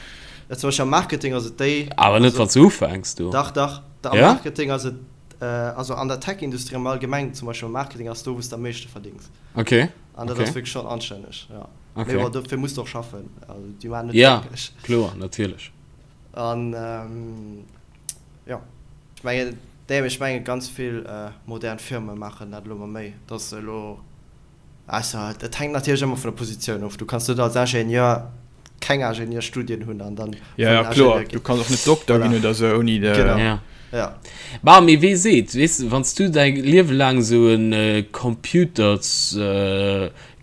Ja, zum Beispill am Marketing ass et déi.
Awer net wann s du ufänks do.
Dach, dach, am Marketing ass et. Also an der Tech-Industrie am Allgemengen, zum Beispill am Marketing, ass do, wou s de am meeschte verdéngs.
Okay.
An dat ass wierklech schonn anstänneg, jo.
Okay.
Mee bon, dofir muss de och schaffen. Also déi maachen
net Ja, glécklech. kloer, natierlech.
An jo, ech mengen, nee, mee ech mengen, ganz vill modern Firme maachen dat elo ëmmer méi, dass se elo Ausser et hänkt natierlech ëmmer vun der Positioun of. Du kanns net als Ingenieur keng Ingenieurstudien hunn an dann
Ja, ja, kloer. Du kanns och net Dokter ginn oder sou ouni de.
Genau. Ja. Ja.
Bah, mee wee seet, weess de, wann s du däi Liewe laang esou e Computers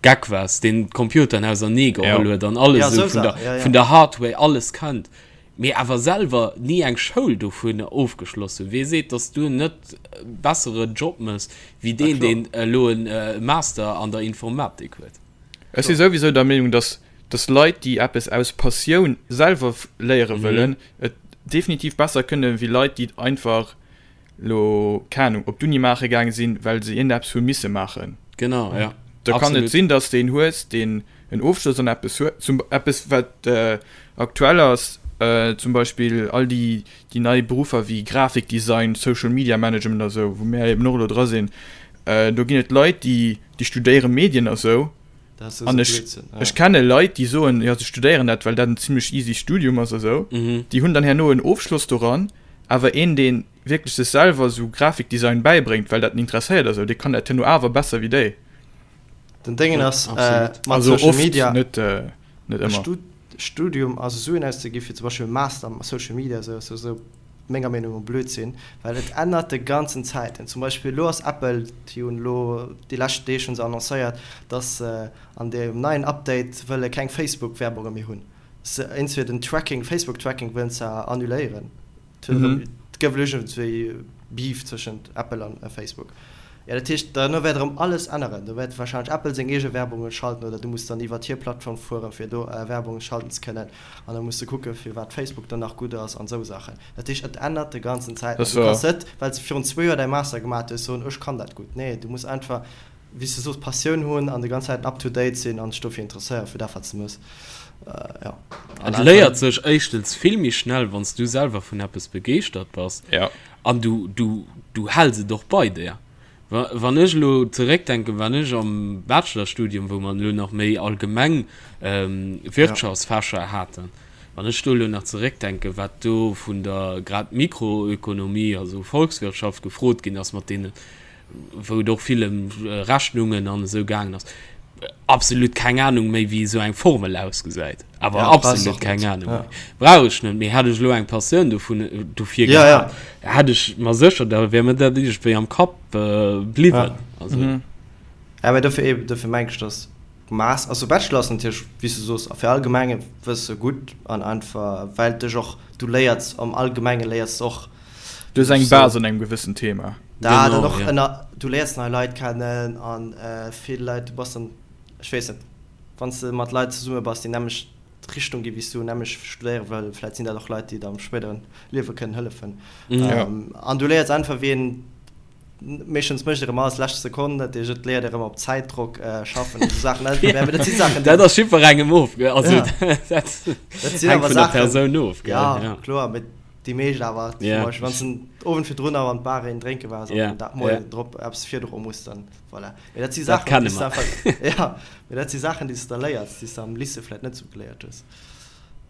Geck waars, deen d'Computeren ausernee geholl huet an alles esou vun der, vun der Hardware alles kennt, mee awer selwer ni eng Schoul dovun ofgeschloss hunn, wee seet, dass du net e bessere Job mëss wéi deen, deen elo e Master an der Informatik huet?
Ech si souwisou der Meenung, dass dass Leit, déi eppes aus Passioun selwer léiere wëllen, et definitiv besser kënne wéi Leit, déi et einfach lo, keng Ahnung, op d'Uni maache gaange sinn, well se iergendeppes hu misse maachen.
Genau, ja.
Da kann et sinn, dass de een hues, deen en Ofschloss an eppes huet, zum eppes wat aktuell ass, zum Beispill all déi déi nei Beruffer wéi Grafikdesign, Social Media Management a sou, wou mär eben och elo dra sinn, do ginn et Leit, déi déi studéiere Medien a sou. An ech ech kenne Leit, déi soen, jo se studéieren dat, well dat en zimlech easy Studium ass a sou. Déi hunn dann herno en Ofschloss doran, awer een, dee wierklech sech selwer sou Grafikdesign bäibréngt, well dat en interesséiert a sou, dee kann dat herno awer besser wéi déi.
Den Déngen ass mat Social Media net ëmmer. Studium, also Suen auszegi fir zum Beispill e Master am Social Media esou ass esou menger Meenung no Blödsinn, well et ännert de ganzen Zäiten. Zum Beispill elo ass Apple, déi hunn elo déi lescht Deeg hunn se annoncéiert, dass se an deem neien Update wëlle keng Facebook-Werbunge méi hunn. Se iergendwéi den Tracking, Facebook-Tracking wëllen se annuléieren. Et gouf elo iergendwéi Beef tëschent Apple an Facebook. Jo, dat heescht, duerno wäert erëm alles änneren. Do wäert warscheinlech Apple seng eege Werbunge schalten oder du muss dann iwwert hir Plattform fueren, fir do Werbunge schalten ze kënnen. An da muss de kucken, firwat Facebook dann nach gutt ass an esou Saachen. Dat heescht, et ännert de ganzen Zäiten. An du kanns net, well s de virun zwou Joer däi Master gemaat hues, soen, ech kann dat gutt. Nee, du muss einfach, wéi s de soos, Passioun hunn an de ganz Zäiten up to date sinn an dech dofir interesséieren, fir dat, wat s de mëss.
Jo. Et léiert sech éischtens vill méi schnell, wann s du selwer vun eppes begeeschtert bass. An du, du, du häls et och bei der. Wa, wann ech elo zeréckdenken, wann ech am Bachelorstudium, wou mer elo nach méi allgemeng Wirtschaftsfächer haten, wann ech do elo nach zeréckdenken, wat do vun der grad Mikroökonomie, also Volkswirtschaft gefrot ginn ass mat deene. wou et och vill ëm Rechnungen an esou gaangen ass, absolut keng Ahnung méi wéi esou eng Formel ausgesäit. Awer ja, absolut keng Ahnung ja. méi. Brauch ech net, mee hätt ech elo eng Passioun dovun dofir ja, gehat, ja. hätt ech mer sécher, da wär mir dat iergendwéi am Kapp äh, bliwwen.
Ja. Also. Mhm. Ja, mee dofir eben, dofir meng ech, dass Mass, also Bachelor ass natierlech, wéi s du soos, fir allgemenge Wësse gutt an einfach well dech och, du léiers am Allgemenge léiers de och.
Du hues eng Base an engem gewëssen Thema.
Dat an och ënner, du léiers nei Leit kennen an vill Leit, du bass dann, ech weess net, wann s de mat Leit zesumme bass, déi nämmlecht Richtung gi wéi s du, nämmlecht studéiere wëll, vläit sinn dat och Leit, déi der am spéideren Liewe kënnen hëllefen. An du léiers einfach wéi een Meeschtens mécht erëm alles lescht Sekonn, dat heescht et léiert erëm op Zäitdrock schaffen an esou Saachen. Mä dat si
Saachen, déi. Dat ass jiddwerengem of, gell? Also ja. dat hänkt vun der Persoun of,
gell? Ja, ja. kloer, mee déi meescht awer, zum ja. Beispill, wann s den Owend virdrun awer an d'Bar een drénke waars an ja. dat Moien ja. drop eppes virdroe muss, dann voilà. Mee dat si Saachen, déi s de einfach, ja, mee dat si Saachen, déi s de da léiers, déi s de am Lycée vläicht net esou geléiert hues.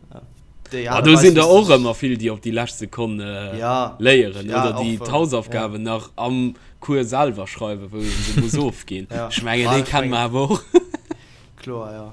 Ja. Déi Aart a do sinn der och ëmmer vill, déi op déi lescht Sekonn ja, léieren ja, oder déi d'Hausaufgaben ja. nach am Cours selwer schreiwen, wou een se muss ofginn. Ja. Ech mengen, déi kenne mer awer och.
Kloer, ja.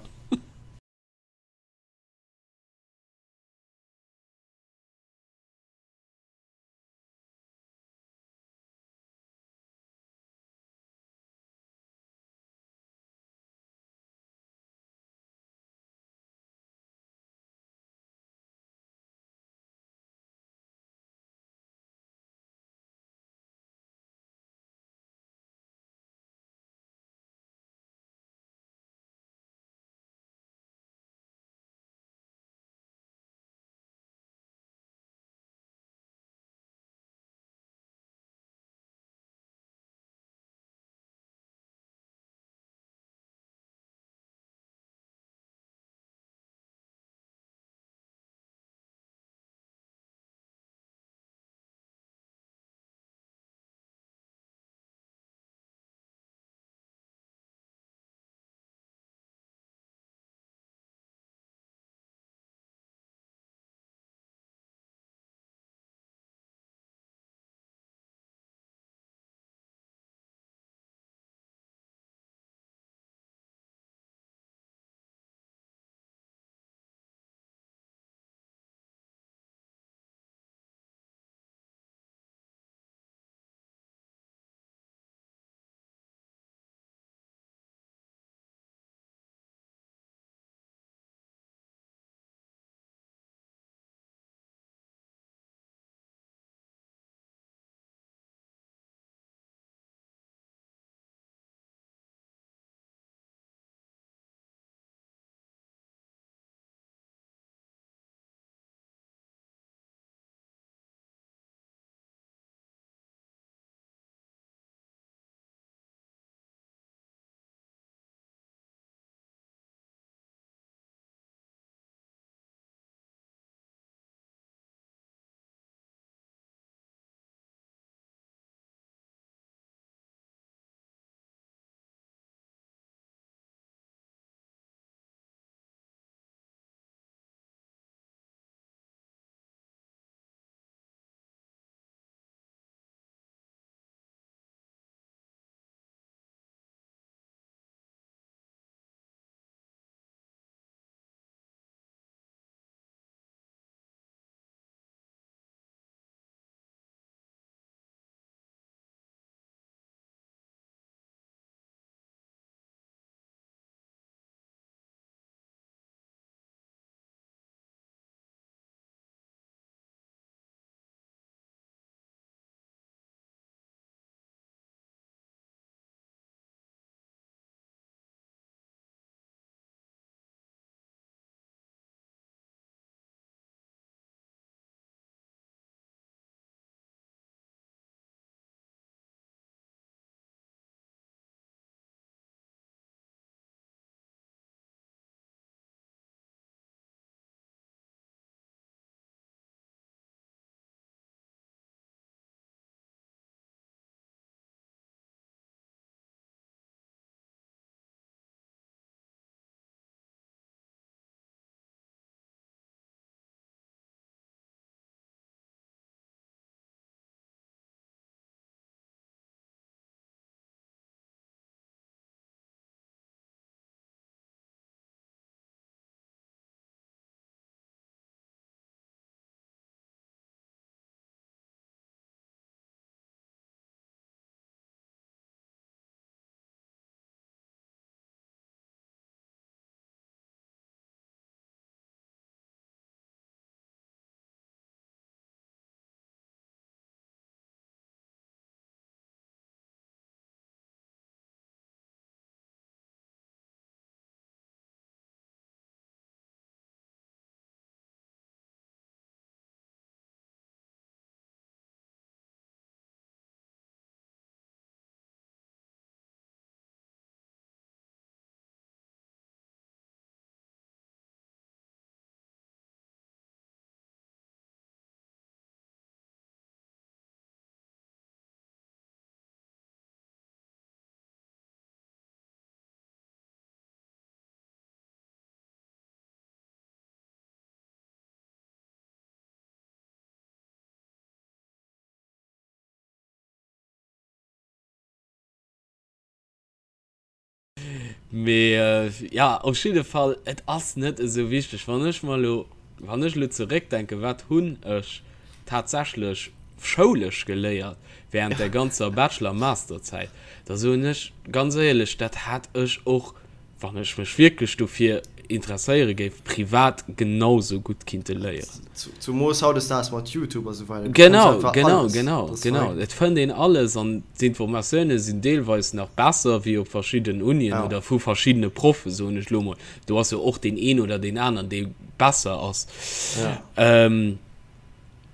Mee ja, op jidde Fall, et ass net esou wichteg. Wann ech mer elo, wann ech elo zeréckdenken, wat hunn ech tatsächlech schoulesch geléiert während der ganzer Bachelor a Masterzäit, da soen ech ganz éierlech, dat hätt ech och wann ech mech wierklech dofir interesséiere géif, privat genau sou gutt kinnte léieren.
Zumoos hautdesdaags mat Youtube a sou weider.
Genau, genau, genau, genau. Et fënnt een alles an d'Informatioune sinn deelweis nach besser wéi op verschiddenen Unien oder vu verschiddene Proffen, soen ech lo mol. Do ass jo och deen een oder deen aneren, dee besser ass.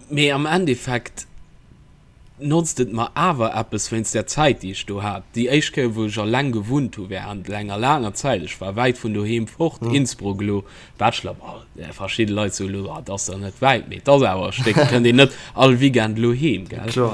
Mee am Endeffekt. notzt et mer awer eppes wéinst der Zäit déi ech do hat. Déi éischt Kéier wou ech alleng gewunnt hu während enger laanger Zäit, ech war wäit vun doheem fort, Innsbruck elo, Bachelor, bon verschidde Leit soe elo, ah et ass der net wäit, mee et ass awer e Stéck, et kënnt een net all Weekend elo heem, gell.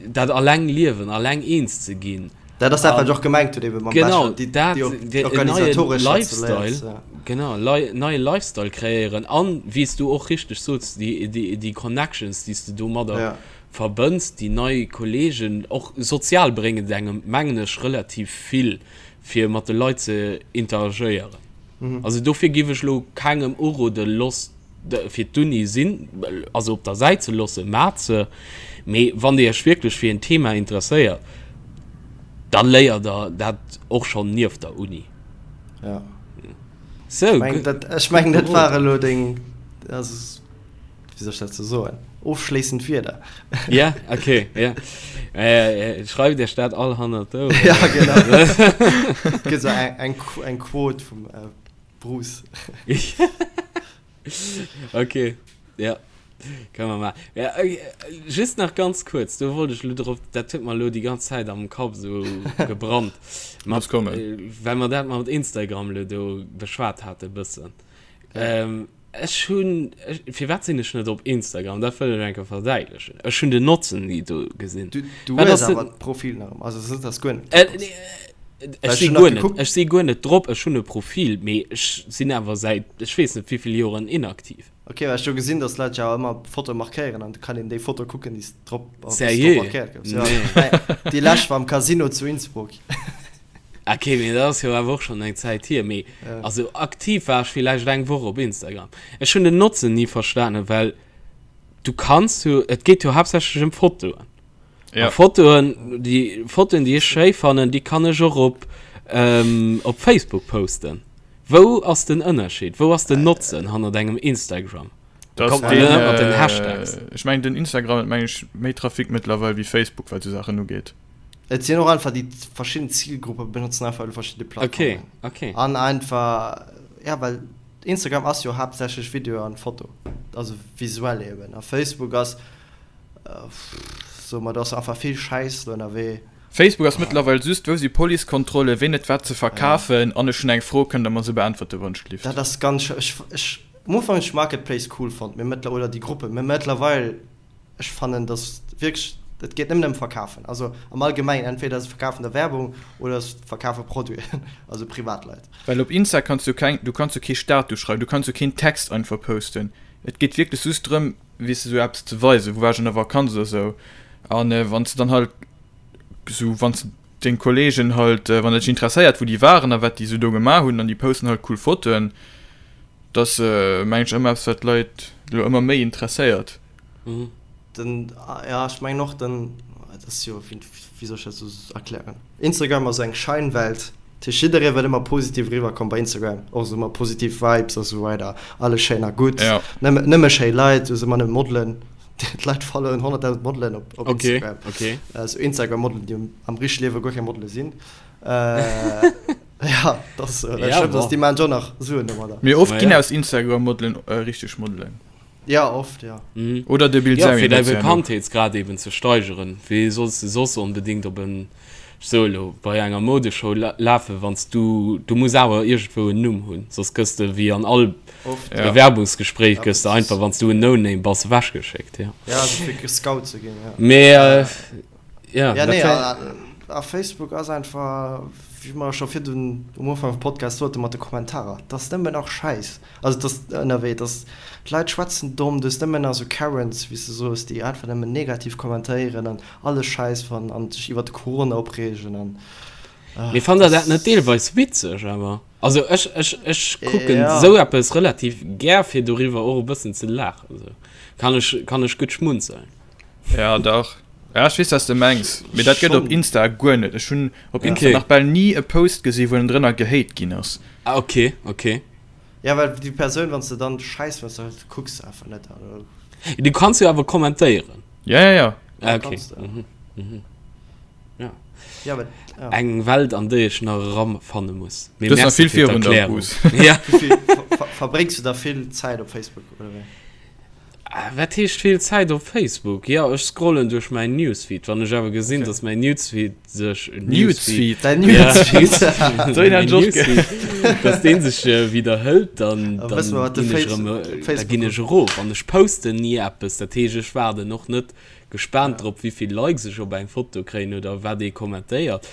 Dat alleng liewen, alleng eens ze ginn.
Dat ass dat wat ech och gemengt hunn ebe mam
Bachelor, déi déi organisatoresch Lifestyle, genau, neie Lifestyle kreéieren an wéi s du och richteg sots, déi déi déi Connections déi s de domadder verbënns, déi nei Kollegen, och sozial bréngt et engem mengen ech relativ vill fir mat de Leit ze interagéieren. Also dofir giff ech elo kengem uroden, loss fir d'Uni sinn, also op der Säit ze loossen, maacht se, mee wann Dir Iech wierklech fir en Thema interesséiert, da léiert Der dat och schonn nieft der Uni.
Ja. Sou, ech mengen, dat war elo deng, also, wéi soll ech dat sou soen, ofschléissend Wierder.
Ja, okay, ja. Schreift Iech dat all hannert
d'Oueren. Ja, genau. Et gëtt esou eng, eng Quote vum Bruce.
Okay, ja. Kënne mer maachen. Ja, okay. Just nach ganz kuerz, do wollt ech lo drop, dat huet mer lo déi ganz Zäit am Kapp esou gebrannt.
Mat, Muss kommen.
Well mer dat mat Instagram lo do beschwat hate bëssen. Ähm, ech hunn, ech, firwat sinn ech net op Instagram? Dat wëll ech eng Kéier verdäitlechen. Ech hunn den Notzen ni do gesinn.
Du, du hues awer d'Profil nach ëmmer, also et ass net, dass guer net drop ass.
Ech si guer net, ech si guer net drop, ech hunn e Profil, mee ech sinn awer säit ech weess net wéivill Joren inaktiv.
Ok, well ech hu gesinn, dass Leit jo awer ëmmer Fotoe markéieren an du kann een déi Foto kucken, déi s drop,
wou s drop markéiert
goufs. Jo, déi lescht war am Casino zu Innsbruck.
Ok, mee dat ass jo awer och schonn eng Zäit hier. Mee also aktiv war ech villäicht eng Woch op Instagram. Ech hunn den Notzen ni verstanen, well du kanns jo, et geet jo haaptsächlech ëm Fotoen. Ja. A Fotoen, déi Fotoen, déi ech schéi fannen, déi kann ech och op, ähm, op Facebook posten. Wou ass den Ënnerscheed? Wou ass den Notzen hannert engem Instagram?
Da kommt man net mat den Hashtags. Ech mengen den Instagram huet meng ech méi Trafic mëttlerweil wéi Facebook wat sou Saachen ugeet.
Et sinn och einfach déi verschidden Zilgruppe benotzen einfach elo verschidde
Plattformen.
Okay, okay. An einfach, ja well Instagram ass jo haaptsächlech Video an Foto, also visuell eben. A Facebook ass So, ma do ass einfach vill Schäiss do ënnerwee.
Facebook ass mëttlerweil just, wou si Policekontrollen, ween huet wat ze verkafen an ech hunn eng Fro, kënnt der mer se beäntwerte
wannschlift? Dat ass ganz schlëmm. Ech, ech, am Ufank hunn ech Marketplace cool fonnt, mee mëttler, oder déi Gruppen, mee mëttlerweil, ech fannen dass wierklech, et geet nëmmen ëm Verkafen. Also am Allgemengen, entweder se verkafen der Werbung oder se verkafe Produiten, also Privatleit.
Well op Insta kanns du keng, du kanns jo kee Status schreiwen, du kanns jo keen Text einfach posten. Et geet wierklech just drëm, weess de, sou eppes ze weisen, wou war ech an der Vakanz oder sou. An wann s de dann halt sou, wann s de deng Kollegen halt, wann dat dech interesséiert, wou déi waren a wat déi sou do gemaach hunn, an déi posten halt cool Fotoen, dat ass, meng ech, ëmmer eppes, wat d'Leit elo ëmmer méi interesséiert.
Den, ja, ech mengen och, den, dat ass jo, wéi soll ech dat sou erklären? Instagram ass eng Scheinwelt, dat heescht jidderee wëll ëmmer positiv eriwwer kommen bei Instagram, och esou ëmmer positiv Vibes a sou weider, alles schéin a gutt,
Ja.
nëmme, nëmme schéi Leit, do si ëmmer nëmme Modelen, d'Leit followen 100.000 Modelen op, op
Okay, Instagram, okay.
esou Instagram-Modelen, déi am richtege Liewe guer keng Modele sinn. Ja, dat ass, well
Ja,
schlëmm, dass
bon.
déi maachen jo och nach Suen domadder.
Mee oft ginn aus Instagram-Modelen richteg Modelen.
Ja, oft, ja.
Mhm. Oder de
Bild Ja, fir däi Bekanntheetsgrad eben ze steigeren. Wéi solls de soss onbedéngt op en, ech soe lo, bei enger Modeshow lafen, wann s du, du muss awer iergendwou en Numm hunn, soss gëss de wéi an all
Oft,
ja. Bewerbungsgespréich gëss de einfach, wann s du en No-Name bass, ewechgeschéckt,
ja. Ja, also fir gescout ze ginn,
ja. Mee,
äh, ja, ja, nee, a, a Facebook ass einfach, wéi mer scho virdun um Ufank vum Podcast soten, mat de Kommentarer, 't ass nëmmen nach Schäiss. Also et ass ënnerwee, dass d'Leit schwätzen domm, du hues nëmmen nach esou Karens, wéi s de soos, déi einfach nëmmen negativ kommentéieren an alles schäiss fannen an sech iwwer de Corona opreegen an.
Mee fannt der dat net deelweis witzeg awer? Also ech, ech, ech kucken ja. sou eppes relativ gär fir doriwwer och e bëssen ze laachen. Sou. Kann ech, kann ech gutt schmunzeln.
Ja dach. Ja, ech weess wat s de mengs, mee dat gëtt op Insta guer net. Ech hunn op Insta nach bal ni e Post gesi wou en drënner gehate ginn ass.
Ah ok, ok.
Ja well déi Persoun wann s de dann schäiss fënns da kucks de einfach net an.
Du kanns jo awer kommentéieren.
Ja ja ja.
Ah ok. Mhm, mhm. Ja. Ja, aber, ja. Eng Welt an déi ech nach eranfanne muss.
Mee Du merci vill fir d'Erklärung.
Ja. Wéi vill verbréngs du da vill Zäit op Facebook oder wéi?
Wat heescht vill Zäit op Facebook? Jo, ech scrollen duerch mäin Newsfeed. Wann ech awer gesinn, okay. dass mäin Newsfeed sech
Newsfeed,
Dein Newsfeed,
dass deen sech widderhëlt, dann, dann ginn ech erëm, da ginn ech erof. An ech posten ni eppes, dat heescht ech waarden och net gespaant drop wéivill Likes ech op eng Foto kréien oder wat ee kommentéiert.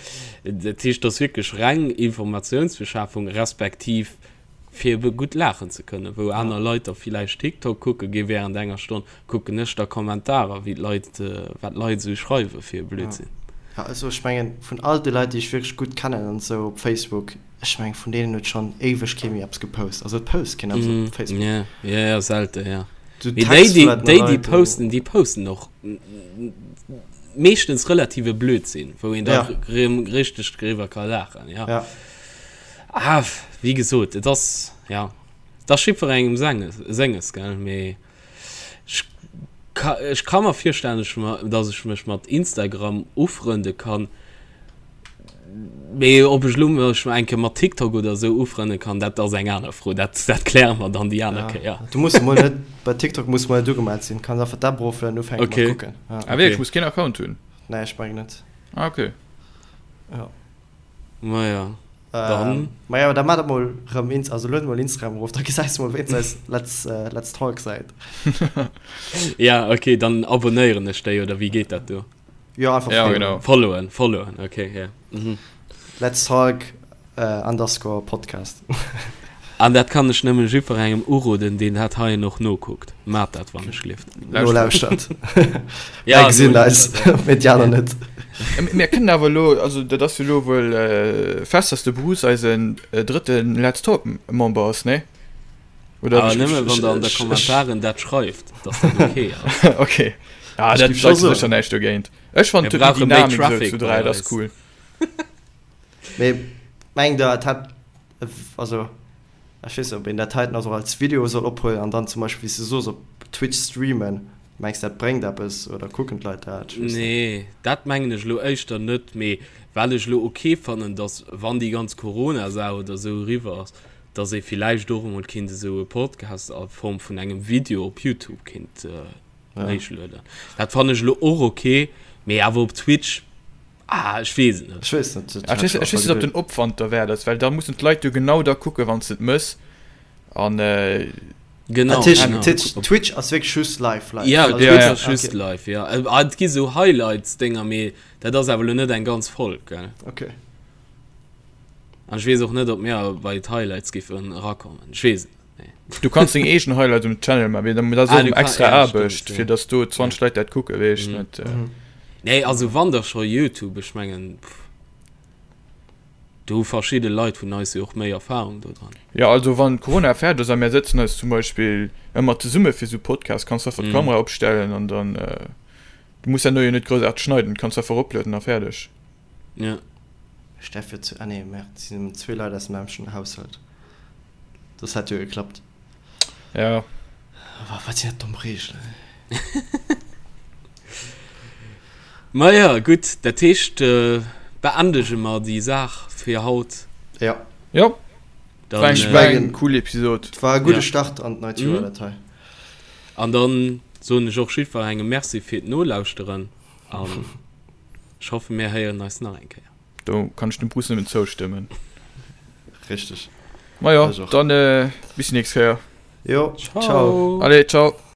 Dat heescht, et ass wierklech reng Informatiounsbeschafung respektiv fir ebe gutt laachen ze kënnen. Wou aner Leit da villäicht TikTok kucke gi wärend enger Stonn, kucken ech da Kommentarer, wéi d'Leit, wat d'Leit esou schreiwe fir e Blödsinn.
Ja, also ech mengen vun all de Leit déi ech wierklech gutt kennen an esou op Facebook, ech mengen vun deenen huet schonn éiweg kee méi eppes gepost. Also et post keen eppes op Facebook.
Ja, ja, ja, selte, ja. Du Mee déi, déi, déi, déi posten, déi posten och meeschtens relative Blödsinn, wou een da ja. richteg driwwer ka laachen, ja. ja. Ah, wéi gesot, et ass, ja, et ass jiddwerengem senges, senges, gell, mee ech ka, ech ka mer virstellen, ech, dass ech mech mat Instagram ufrënde kann, Mee ob ech lo mech eng Kéier mat TikTok oder esou ufrënne kann, dat ass eng aner Fro. Dat, dat kläre mer dann déi aner Kéier.
Du muss emol net, bei TikTok muss mol net ugemellt sinn, kanns einfach d'App eroflueden an ufänke mat kucken.
Ah wierklech, muss keen Account hunn?
Nee, ech mengen net.
Ah okay.
Jo.
Maja, dann.
Maja, da maach emol rëm Inst, also lued emol Instagram erof, da gesäis de mol wéinst eis Let's, Let's Talk Säit.
Ja, okay, dann abonnéieren ech déi, oder wéi geet dat do?
Jo, einfach
ja, genau.
Followen, followen, okay, ja.
Mhm. Let's Talk äh, underscore Podcast.
An dat kann ech nëmmen jiddwerengem uroden, deen dat heien och nokuckt. Maat dat, wann ech lift.
Nolauschtert. Ja, Mir gesinn eis, mee déi aner net.
Mir kënnen awer elo, also dat ass jo elo wuel äh, fest, dass de Bruce eisen äh, drëtten Let's Talk Member ass, nee?
Oder Awer nëmme wann der an der Kommentaren dat schreift, dass dat okay
ass. Okay. Ja, dat scho sécher näischt dogéint. Ech fannen
Mir brauche méi Traffic
zu 3, dat ass cool.
Mee mengt der et hätt, also ech weess net ob een dat heiten also als Video soll ophuelen an dann zum Beispill wéi s de soos op Twitch streamen, mengs dat bréngt eppes oder kucken d'Leit dat?
Ech weess net. Nee, dat mengen ech elo éischter net, mee wat ech elo ok fannen, dass wann déi ganz Corona-Saach oder esou eriwwer ass, dass ee villäicht och emol kinnt esou e Podcast a Form vun engem Video op Youtube kinnt héichlueden. Dat fannen ech elo och ok, mee awer op Twitch, ah, ech weess et net.
Ech weess net.
Ech weess ech weess net, ob den Opwand derwäert ass, well da mussen d'Leit jo genau da kucken, wann s de et mëss an.
Genau.
Dat heescht, Twitch ass wierklech just live, live?
Ja, Twitch ass just live, jo. Et gi sou Highlights-Dénger, mee dat ass awer elo net eng ganz Folg, gell.
Ok.
An ech weess och net, ob mir bei d'Highlights giffen erakommen. Ech weess et net,
nee. Du kanns deng eegen Highlights um Channel man, mee dat ass och extra Aarbecht, fir dass do 20 Leit dat kucken, weess ech net.
Nee, also wann da scho Youtube, ech mengen, do hu verschidde Leit vun eis jo och méi Erfahrung do dran.
Jo, also wann Corona fäerdeg ass a mär sëtzen eis zum Beispill ëmmer zesumme fir sou Podcasts, kanns du einfach d'Kamera opstellen an dann, du muss herno jo net groussaarteg schneiden, kanns einfach eroplueden a fäerdeg.
Ja.
Steff jo zu, ah nee, merde, et sinn nëmmen zwee Leit aus dem nämmlechten Haushalt. Soss hätt jo geklappt.
Ja.
Wa, wat sinn dat domm Reegelen,
ey. Maja, gutt, dat heescht, beendege mer déi Saach fir haut.
Ja.
Jo. Dann, war eng, war eng cool Episod.
War e gudde Start an d'neit Joer, dat hei.
An dann soen ech och jiddwerengem Merci fir d'Nolauschteren an. Ech hoffen mir héieren eis nach eng Kéier.
Do kann ech dem Bruce nëmmen zoustëmmen.
Richteg.
Majo, dann bis déi nächst Kéier.
Jo, ciao.
Allez, ciao.